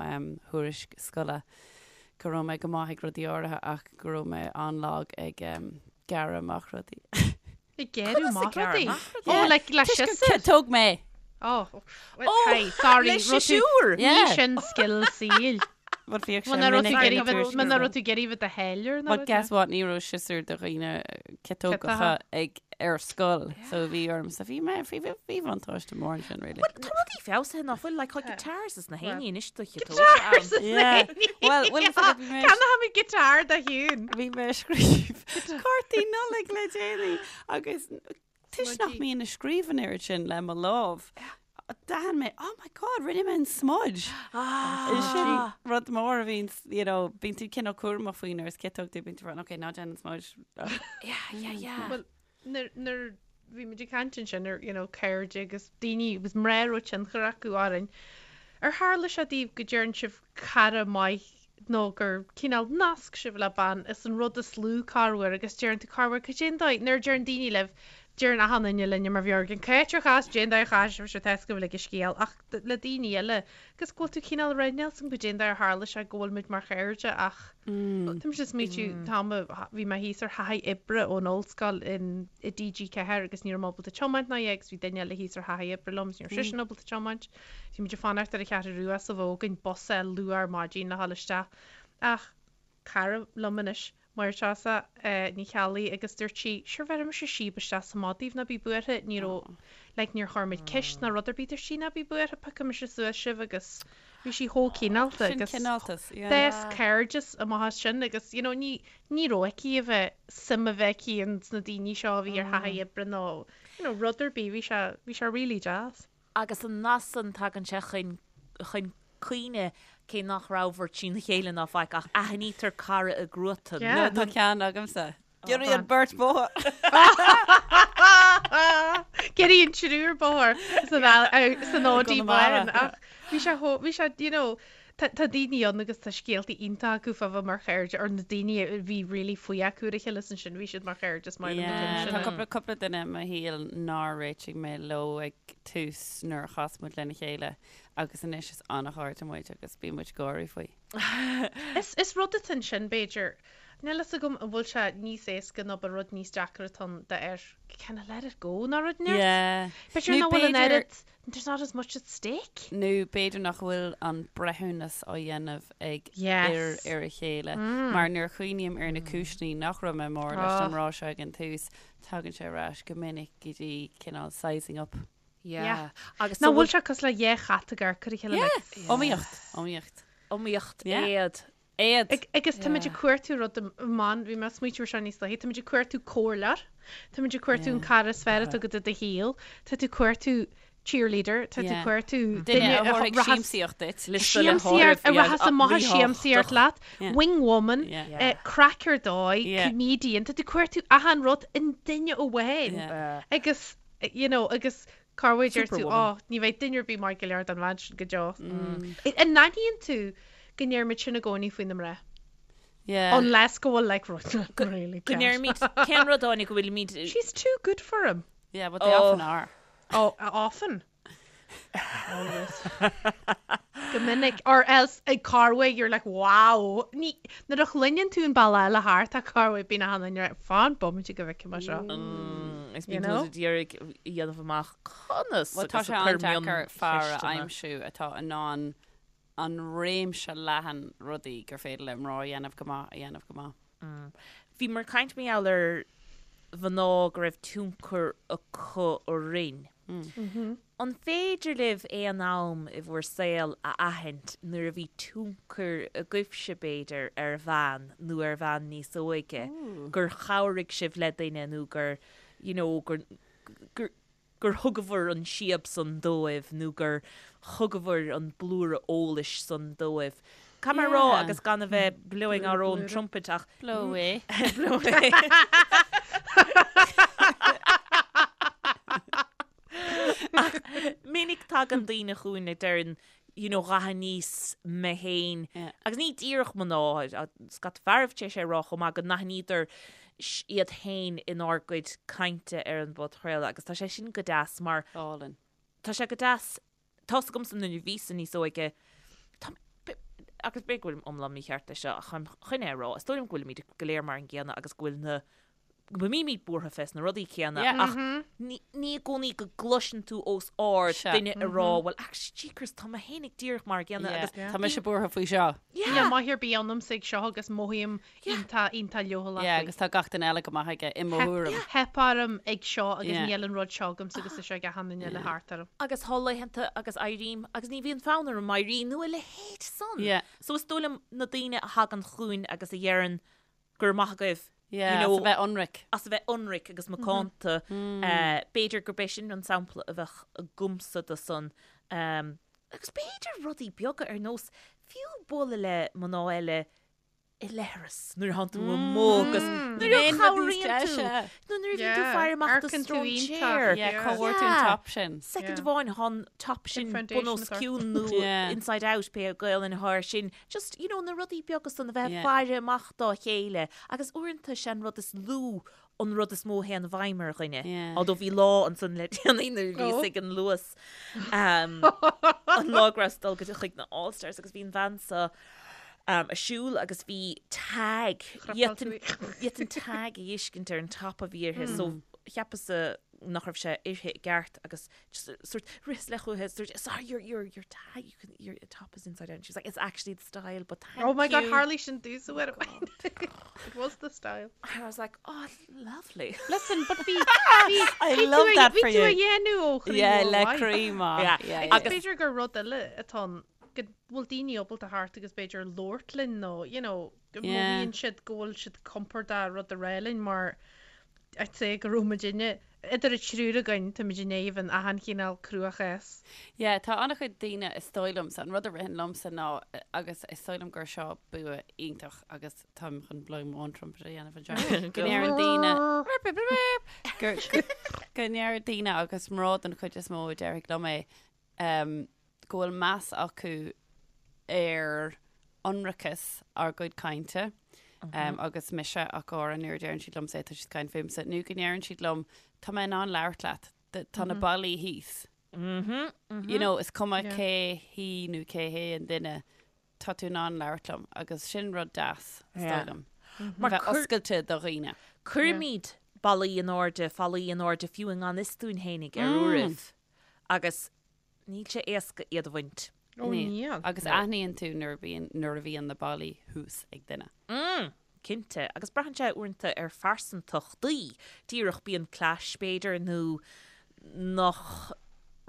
thuairisc scoile go raibh mé go maith ag rudaí áirithe ach go raibh mé an-lag ag gearradh amach rudaí. Ag gearradh amach rudaí? Yeah. Oh, like le Toisc gur siosúr? ciotóg mé. Oh, oh, hey, sorry. le raibh tú- siosúr? Ní Yeah. sin scil saoil. Bhuel, bhíodh sé Muna raibh tú minic ag ar iarraidh na bheith- tuairiscí. muna raibh tú ag iarraidh bheith do tháilliúir nó But rud guess what, ní raibh siosúr do dhaoine ciotógacha Ciotaithe. ag ar scoil, so bhí ormsa, bhí mé, bhí bhí bhí bhuntáiste mór ansin, really. Well, tá rudaí feabhsaithe nach bhfuil, like, tá guitars is na héinní anois do chiotóga Guitars ann. is na Yeah. héinní. Well, bhfuil fhios agat, bhí mé Ceannóimid guitar do Shiún. Bhí mé ag scríobh cártaí Nollag le déanaí agus toisc nach mbím ag scríobh an oiread sin le mo lámh, d'aithin mé, oh my god, rinne mé an smudge. Sin rud mór a bhíonn, you know, bíonn tú cineál cúramach faoi nuair is ciotóg tú, bíonn tú ag rá, ok, ná déan an smudge. Yeah, yeah, yeah. Well, nuair nuair bhí muid ag caint ansin ar, you know, cairde agus daoine agus mná a raibh tionchar acu orainn, ar tharla sé daoibh go deireann sibh cara maith nó gur cineál nasc sibh le bean is an rud is lú corruair agus deireann tú corruair cad é an dóigh nuair a deireann daoine libh deireann achan duine linne mar bheag an cá háit ar chas cad é an dóigh ar chas sibh sure tá 'fhios agaibh uilig an scéal ach le daoine eile agus go bhfuil tú cineál ag rá níl 'fhios agam cad é an dóigh ar tharla sé go bhfuil muid mar chairde ach tá mise ag smaoitiú tá bhí mé thíos ar thaithí oibre ón ollscoil in i TG4 agus ní raibh mé ábalta tiomáint ná agus bhí duine eile thíos ar thaithí oibre liom agus ní raibh seisean ábalta tiomáint. Bhí muid ag fanacht ar an Cheathrú Rua sa bhfógain bus a luath ar maidin le dhul isteach ach cara liom anois. Máire Treasa Ní Cheallaigh agus dúirt sí, sure bheirfidh mise síob isteach sa mbád daoibh, ná bí buartha, ní raibh, like níor chuir muid ceist ná rud ar bith, dúirt sí, ná bí buartha, piocfaidh mise suas sibh agus bhí sí chomh cineálta Sin agus cineáltas, yeah. d'fhás cairdeas amach as sin agus you know ní, ní raibh aici a bheith, suim a bheith aici ins na daoine seo a bhí ar thaithí oibre nó you know rud ar bith, bhí sé, bhí sé really deas. Agus an nath san, tagann sé chun chun cuimhne, cé nach rabhabhair trína chéile ná faic, ach aithnítear cara i gcruatan. Yeah. Tá ceann agamsa. Giorraíonn an beirt bóthar. Giorraíonn triúr bóthar san san Audi Conamara. bán ach bhí sé chomh, bhí sé, you know, tá tá daoine ann agus tá scéaltaí iontacha acu fá bheith mar chairde or na daoine a bhí really faoi acu ar a chéile is ansin bhí siad mar chairde is maith liom na Yeah, cinn tá sin. cúpla cúpla duine i mo shaol nár réitigh mé leo ag tús nuair a chas muid lena chéile agus anois is an-chairde muid agus bíonn muid ag gáirí faoi. Is is rud atá ansin b'fhéidir. Níl fhios agam an bhfuil sé níos éasca nó ba rud níos deacra atá ann d'fhear kind of let it go nó rud inteacht. Yeah. B'fhéidir Nó nach bhfuil an b'fhéidir- oiread, there's not as much at stake. Nó b'fhéidir nach bhfuil an breithiúnas á dhéanamh ag Yes. fhir ar a chéile. Mar nuair a chuimhním ar na cúiseanna nach raibh mé mór leis Oh. an mná seo ag an tús, tagann sé ar ais go minic go dtí cineál sizing up. Yeah. Agus Nach bhfuil sé cosúil le dhá chat ag amharc ar a chéile Yeah. like, Iomaíocht. Iomaíocht. Iomaíocht Yeah. éad. Éad. Ag, agus táimid ag cuartú rud amháin, bhí mé ag smaoitiú ar seo níos luaithe, táimid ag cuartú comhairleoir, táimid ag cuartú an cara is fearr atá agat i do shaol, tá tú ag cuartú cheerleader, tá tú ag Yeah. cuartú Duine a thabharfaidh rachas- siamsaíocht duit. Liosta le siamsaíocht, a háireamh, rachas amach ag ríthábhachtach. siamsaíocht leat, Yeah. wing woman, Yeah. eh, craic ar dóigh, Yeah. comedian, tá tú ag cuartú achan rud i nduine amháin. Yeah. Agus, you know, agus corruair deir tú, Superwoman. oh, ní bheidh duine ar bith maith go leor don bhean sin go deo. An n-aithníonn tú go ndeirimid sin i gcónaí faoi na mná? Yeah. Unless go bhfuil like rud really Go ndeirimid, cén rud Áine go bhfuilimid She's too good for him. Yeah, but they Oh. often are. Oh, often. Always. Go minic. Or else ag corruair you're like, wow. Ní, nuair a chluineann tú an bealach eile thart tá corruair bíonn achan duine like, fan bomaite go bhfeicfidh mé seo. Is You bíonn know? tú ag iarraidh a dhéanamh amach conas Well, tá agus sé ag cur an-deacair fear a mioncheisteanna. aimsiú atá in ann an réimse leathan rudaí gur féidir le mná a dhéanamh go maith a dhéanamh go maith. Bhíomar ag caint mar gheall ar mhná go raibh tionchar acu orainn. An féidir libh aon am i bhur saol a aithint nuair a bhí tionchar agaibhse, b'fhéidir, ar bhean nó ar bhean níos óige, gur chabhraigh sibh le duine nó gur, you know, gur, gur, gur thugabhair an síob san dóibh nó gur thugabhair an blúire eolais san dóibh. Caithfidh mé a rá, agus gan a bheith blowing our own trumpet ach. Blow away. Blow away. Ach minic tagann daoine chugainn a deireann, you know, dh'aithníos mé féin, agus ní díreach mná, scata fearaibh tar éis é a rá chomh maith, go n-aithníodar iad féin inár gcuid cainte ar an bpodchraoladh agus tá sé sin go deas mar Álainn. tá sé go deas, tá's agamsa nuair a bhíos-sa níos óige, tá, agus b'fhéidir go bhfuilim iomlán mícheart leis seo ach táim chun é a rá, is dóigh liom go bhfuilimid go léir mar an gcéanna agus go bhfuil na go mbímid buartha fés na rudaí céanna Yeah. ach ní ní i gcónaí go gcloiseann tú os ard Sea. duine ag rá well actually jeekers tá mé féinig díreach mar an gcéanna Yeah. agus Tá mise buartha faoi seo. Níl yeah maith ar bith ionamsa ag seo agus mothaím iontach iontach leochaileach Yeah, faoi. agus tá gach duine eile go maith aige i mo Theip thuairim. theip orm ag seo agus Yeah. níl an rud seo agamsa agus tá sé ag achan duine eile thart orm. agus tá laethanta agus éirím agus ní bhíonn fonn orm éirí nó a leithéid san. Yeah. So is dóigh liom na daoine a thagann chugainn agus a dheireann go raibh maith agaibh, Yeah, you know, as a bheith ionraic. as a bheith ionraic agus macánta. B'fhéidir gurb é sin an sampla a bheadh agamsa de san. Agus b'fhéidir rudaí beaga ar nós fiú bualadh le mná eile i leithreas nuair a thánn tú amuigh agus nuair a Aon rud níos chabhraíonn tú deise. nó nuair a bhíonn tú Yeah, faire amach do amharcann tú iontach. stróinséir. Yeah, Yeah. cá bhfuair tú an Yeah. top sin? Second Yeah. amháin thá an top sin Sin foundation bun os atá ort. cionn nó Yeah. inside out pé Gaelainn atá air sin. Just, you know, na rudaí beaga san a bheith Yeah. faire amach dá chéile agus uaireanta sé an rud is lú an rud is mó a théann i bhfeidhm ar dhuine. Yeah. Although bhí lá ansan le déanaí nuair a bhíos Oh. ag an Luas um, an lá go rabhas ag dul go dtí chuig na All Stars agus bhí an bhean so um, ag siúl agus bhí tag Chrapáil tú d'fhéadfainn tag a fheiscint ar an top a bhí uirthi so cheapas-sa. nach raibh sé uirthi i gceart agus just sort rith le chuici sort sorry your your your tie you can your top is inside out and she was like it's actually the style but thank Oh my god you. tharlaigh sin domhsa uair amháin. It was the style. And I was like oh lovely. Listen but bhí bhí I bhí tú love a that bhí for tú you. a dhéanamh ó chroí Yeah, mhór le mhaith. croí maith. Yeah. Yeah, yeah. Agus b'fhéidir gur rud eile atá ann go bhfuil daoine ábalta theacht agus b'fhéidir labhairt linn nó you know go Yeah. mothaíonn siad go bhfuil siad compordach rud a rá linn mar I'd say go raibh muidinne, idir an triúr againn, táimid in éadan achan chineál cruachás. Yeah, tá an-chuid daoine, is dóigh liomsa, an rud a ritheann liomsa ná, agus is dóigh liom gur seo bua iontach agus táim chun blowing my own trumpet a dhéanamh anseo, go ndeireann daoine, gur, go ndeir daoine agus mná den chuid is mó a déarfaidh liom é, um, go bhfuil meas acu ar ionracas ár gcuid cainte um, agus mise ach go háirithe nuair a deireann siad liomsa é tá siad ag caint fúmsa nó go ndeireann siad liom tá mé in ann labhairt leat tá na ballaí thíos. You know, is cuma cé hí nó cé hé an duine tá tú in ann labhairt liom agus sin rud deas is dóigh liom. Mar bheith oscailte do dhaoine. Cuirimid ballaí in airde, fallaí in airde fiú i ngan fhios dúinn fhéinig ar uairibh. Agus níl sé éasca iad a bhaint. Ó níl. Agus aithníonn tú nuair a bhíonn, nuair a bhíonn na ballaí thuas ag duine. Mm, cinnte. Agus braitheann sé uaireanta ar phearsantachtaí. Díreach bíonn clash b'fhéidir nó nach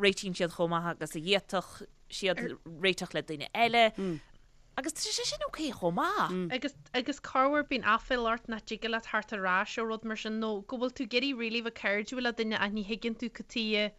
réitíonn siad chomh maith agus a d'fhéadfadh siad réiteach le duine eile. Agus tá sé sin ok chomh maith. Agus, agus corruair bíonn aiféala ort nach dtig leat theacht ar ais ó rud mar sin nó go bhfuil tú ag iarraidh really bheith cairdiúil le duine ach ní thuigeann tú cad tuighe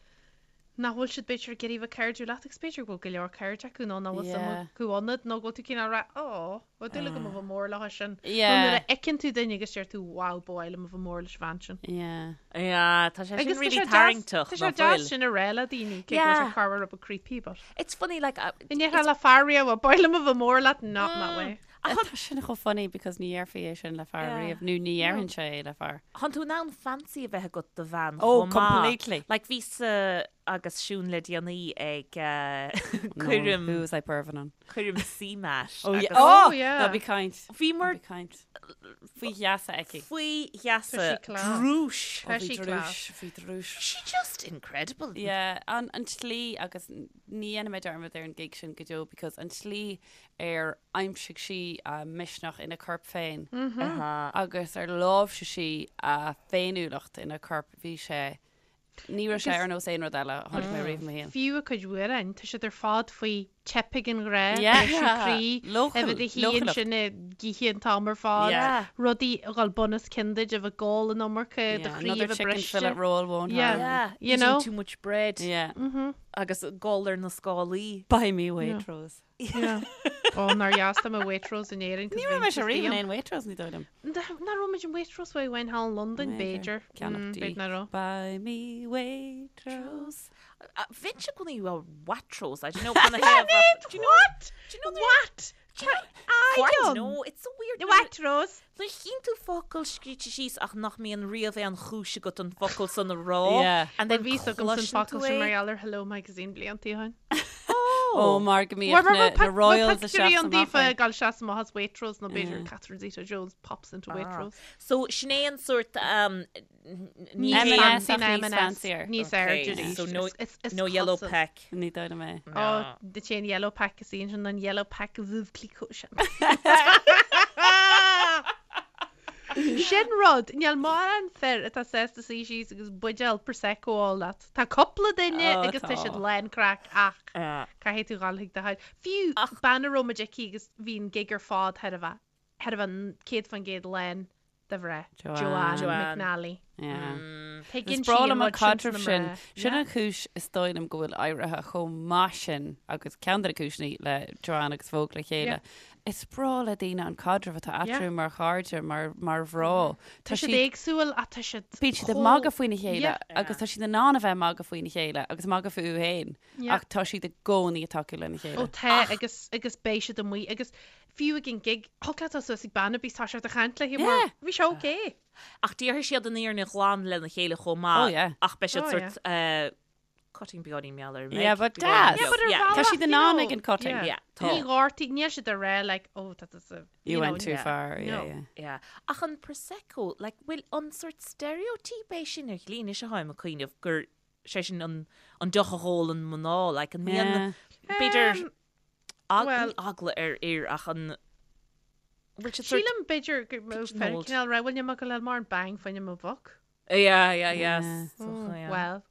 nach bhfuil siad b'fhéidir ag iarraidh bheith cairdiúil leat agus b'fhéidir go bhfuil go leor cairde acu nó nach bhfuil suim Yeah. acu ionat nó go bhfuil tú cineál ag rá oh bheadh dúil agam a bheith mór leo sin. Nó Yeah. nuair a fheiceann tú duine agus deir tú wow ba mhaith liom a bheith mór leis an bhean sin. Yeah. Yeah, tá sé sin Agus tá really sé deas, tarraingteach, tá sé nach deas bhfuil? sin a rá le daoine, cé go bhfuil Yeah. sé corruair rud beag creepy but. It's funny like uh, Ní déarfá le fear riamh ba mhaith liom a bheith mór leat not in that way. Tá sin chomh funny because ní dhéarfaí é sin le fear Yeah. riamh nó ní dhéarfainn sé é le fear. Tánn tú in ann fancy a bheith agat do bhean Oh, chomh maith. completely. Like bhíos-sa agus Siún le déanaí ag uh, coirm Who was I perving on? coirm CMAT. Oh, yeah. agus Oh, Oh, yeah. Ná bí ag caint. Bhíomar Ná bí ag caint. Faoi gheasa aici. faoi gheasa Tá sí class. drúis. Tá Oh, bhí sí drúis, class. bhí drúis. She just incredible. Yeah, an, an tslí agus ní dhéanfaidh mé dearmad ar an gig sin go deo because an tslí ar aimsigh sí a misneach ina corp féin agus ar láimhsigh sí a féiniúlacht ina corp, bhí sé, ní raibh sé ar nós aon rud eile a chonaic mé riamh i mo shaol. Fiú a cuid amhrán, tá siad ar fad faoi teip ag an ghrá, Yeah. briseadh croí, Leochail- a bheith i do shuí leochaileacht. ansin ag ithe an t-am ar fad, Yeah. rudaí a dhul bun os cionn duit, a bheith ag ól an iomarca, do Yeah, chroí a another bheith chicken briste. fillet roll won't Yeah. harm. Yeah, You eating know? too much bread Yeah. agus gol ar na scálaí. Buy me Waitrose. Yeah. Ó, nár dheas dom i Waitrose in Éirinn. Ní raibh mise riamh in aon Waitrose ní dóigh liom. Nach raibh muid in Waitrose uair amháin thall in Londain, b'fhéidir. Ceannach dí. B'fhéidir nach raibh. Buy me Waitrose. Bheinnse i gcónaí ag rá Waitrose, I don't know kind of have Do you know What? Do you know What? I don't know, it's so weird. Waitrose. Nuair a chíonn tú focal scríte síos ach nach mbíonn riamh aon chúis agat an focal san a rá. Yeah. And then Bhí agam san cloiseann focal tú sin mar é. gheall ar Hello Magazine blianta ó shin. Ó mar go mbíodh na na Royals ag Pictiúirí seasamh an amach daofa é. ag dul seasamh amach as Waitrose nó b'fhéidir Catherine Zeta-Jones pops into Waitrose. So sin é an sórt um, ní M&S hé- ach níos fancier. Níos Okay, airde arís. so no, Is- is no yellow cosúil. pack. Ní dóigh liom é. Ó, de sé an yellow pack is í sin an yellow pack Veuve Clicquot sin. Sin rud, níl mórán fir atá sásta suí síos agus buidéal Prosecco a ól leat. Tá cúpla duine Ó, agus tá tá. siad lán craic ach caithfidh tú dhul chuig do thoil. Fiú bean a raibh muid aici agus bhí an gig ar fad thar a bheith, thar a bheith 100% lán de mhná. Joanne. Joanne Joanne. McNally. Yeah. Tuigeann Is sí breá an liom an rud sin caidreamh sna sin. mná. Sin an chúis is dóigh liom go bhfuil éirithe chomh maith sin agus ceann de na cúiseanna le Joanne agus Vogue le chéile. Yeah. Is breá le daoine an caidreamh atá Yeah. eatarthu mar chairde, mar mar mhná. Tá siad éagsúil ach tá siad Bíonn siad ag chomh- magadh faoina chéile Yeah. agus tá siad in ann a bheith ag magadh faoina chéile agus magadh fúthu féin Yeah. ach tá siad i gcónaí ag tacú lena Ó chéile. tá agus agus beidh siad amuigh agus fiú ag an gig thig leat dul suas ag bean ar bith tá siad ag caint léi mar Yeah. bhí sé okay. Ach déarfaidh siad an fhírinne ghlan lena chéile chomh maith. Oh, yeah. Ach beidh siad Oh, sórt eh, Cutting beagáinín mar gheall ar Yeah, but deas. Yeah, but ar Yeah. bhealach, Tá siad in you ann know, ag an cutting. yeah. Yeah, tá. Ní ghortaí, níl siad ag rá like, oh, tá tusa, You you know, went too yeah. far, yeah, No. yeah. Yeah. Ach an Prosecco, like, bhfuil an sort stereotype é sin ar shlí anois atáim ag cuimhneamh gur sé sin an, an deoch a dh'ólann mná, like, an mbíonn, Yeah. b'fhéidir, Um, ag, well- ní eagla ar fhir ach an, bhfuil siad sort, Sílim b'fhéidir go mbeadh fear Pigeonholed. cineál rá, bhfuil mé go leil mar an bang fá choinne mo mhac. yeah, yeah, yeah. Yeah. So, yeah. Well.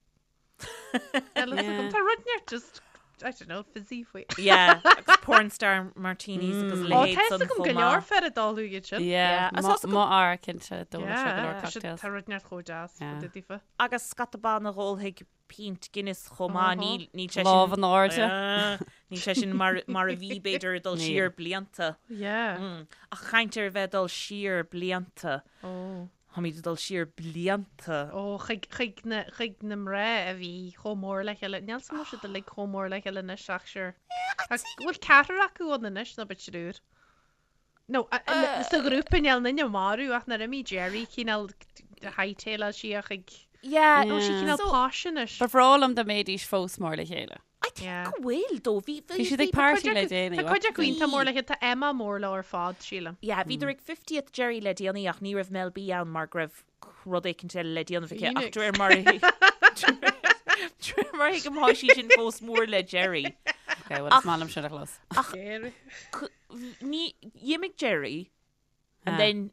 Yeah. Tá rud neart just, I don't know, fizzy faoi. Yeah, agus porn star martinis agus Ó, leithéid tá san fhios agam chomh go leor maith. fear ag ól iad sin. Yeah, Yeah. Is mo fhear cinnte d'ól sé go leor Yeah, tá siad- cocktails. tá rud neart chomh deas Yeah. fá dtaobh daofa. Agus scata ban a dh'ólfaidh pínt Guinness chomh maith, Uh-huh. níl níl sé sin Lámh in airde. Ah, níl sé sin mar mar a bhí b'fhéidir ag dul Níl. siar blianta. Yeah. Mm. Ach caint ar bheith ag dul siar blianta. Oh. Táimid ag dul siar blianta. Ó, chuig, chuig na, chuig na mná a bhí chomh mór le chéile. Níl 's agam an bhfuil siad uilig chomh mór le chéile anois ach sure. Ach bhfuil ceathrar acu ann anois nó b'fhéidir triúr? No, a, a, sa ghrúpa níl aon duine marbh ach nuair a imigh Geri cineál hightail sí chuig, Yeah. nó sí cineál So- posh anois. Ba bhreá liom dá mbeidís fós mór le chéile. I think Yeah. go bhfuil dó. Bhí, bhí, Bhí siad bhí ag party Cuid le acu- déanaí. Tá cuid acu iontach mór le chéile, tá Emma mór leo ar fad, sílim. Yeah, bhíodar ag 50th Geri le déanaí ach ní raibh Mel B ann mar go raibh rud éicint eile le déanamh aici ach Phoenix. de réir mar a de réir mar a thuigim tá sí sin fós mór le Geri. Okay, well, is maith liom sin a chlos. Geri. Ní d'imigh Geri and Ah. then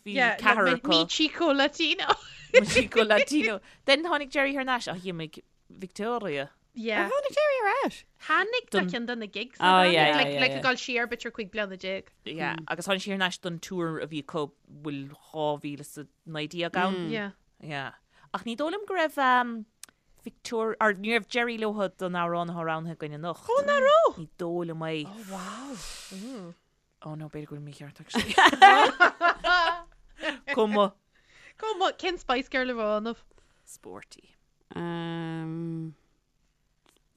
bhí Yeah, ceathrar mi, acu. mi Chico Latino. Mi Chico Latino. Then tháinig Geri thar n-ais ach d'imigh Victoria. Yeah. Tháinig Geri ar ais. Tháinig do Don- cheann de na gigs. Oh, yeah, yeah, Like, yeah, like yeah. ag dul siar b'fhéidir 15 bliana. Yeah, agus tháinig sí thar n-ais don tour a bhí acu bhfuil 2019 ann. Yeah. Yeah. Ach ní dóigh liom go raibh um, Victoria, or ní raibh Geri leo don amhrán atá roghnaithe againn anocht. Ó, nach raibh? Ní dóigh liom é. Oh, wow. Oh no, b'fhéidir go bhfuil mícheart actually. Cuma. Cuma, cén Spice Girl a bheadh ionaibh? Sporty. Um,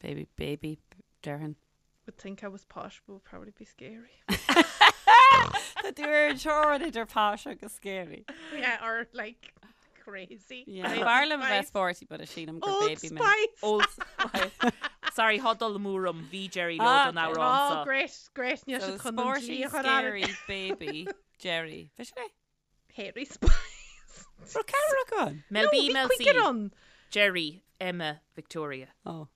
baby, baby, déarfainn. Would think I was posh, but would probably be scary. Tá tú ar an teorainn idir posh agus scary. Yeah, or like crazy. Yeah. Old B'fhearr liom a bheith Spice. sporty, but is sílim gur Old baby mé. Spice. Old Spice. Sorry, thá dul amú orm, bhí Geri leo Ah, don amhrán Oh, seo. great, great. Níl So siad chun an sporty, dlí a chur air. scary, baby, Geri. Bhí sin é? Hairy Spice. Raibh ceathrar acu ann? Mel No, B, bhí Mel C. cúigear ann. Geri, Emma, Victoria. Oh.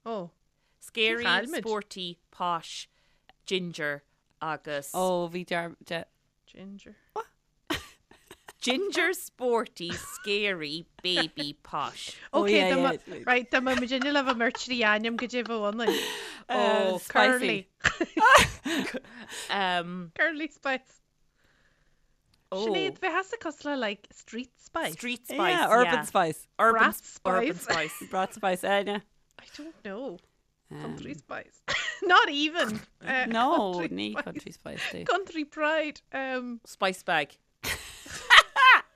Oh. Scary, Chaill muid. sporty, posh, ginger agus Oh, bhí dear, de, Ginger. Ginger, sporty, scary, baby, posh. Oh, Okay, yeah, dá yeah, mba- it's- right, dá mba muid inne le bheith mar trí ainm go dtí bheith ionainn. Oh, Curly. spicy. Um, Curly Spice. oh, Sinéad, bheith as cosúil le like street spice. Street spice, Yeah, urban yeah. spice. Urban, Brat Urban spice. spice. Brat spice, Áine. I don't know. Um, Country spice. Not even. Uh, No, country ní spice. country spice dí. Country pride. Um, Spice bag.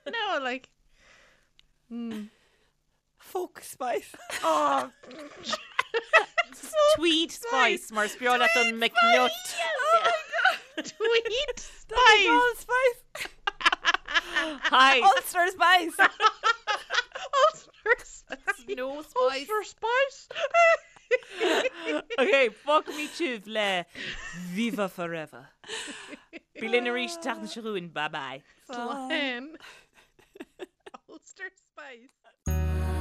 no, like. Mm. Folk spice. Oh, Tweed spice, mar is breá leat an McNutt. tweed spice. Old spice. Hi. Ulster spice. Ulster spice. No spice. Ulster spice. Okay, fágfaimid sibh le Viva Forever. Bí linn arís an tseachtain seo chugainn, bye bye. Slán. Ulster spice.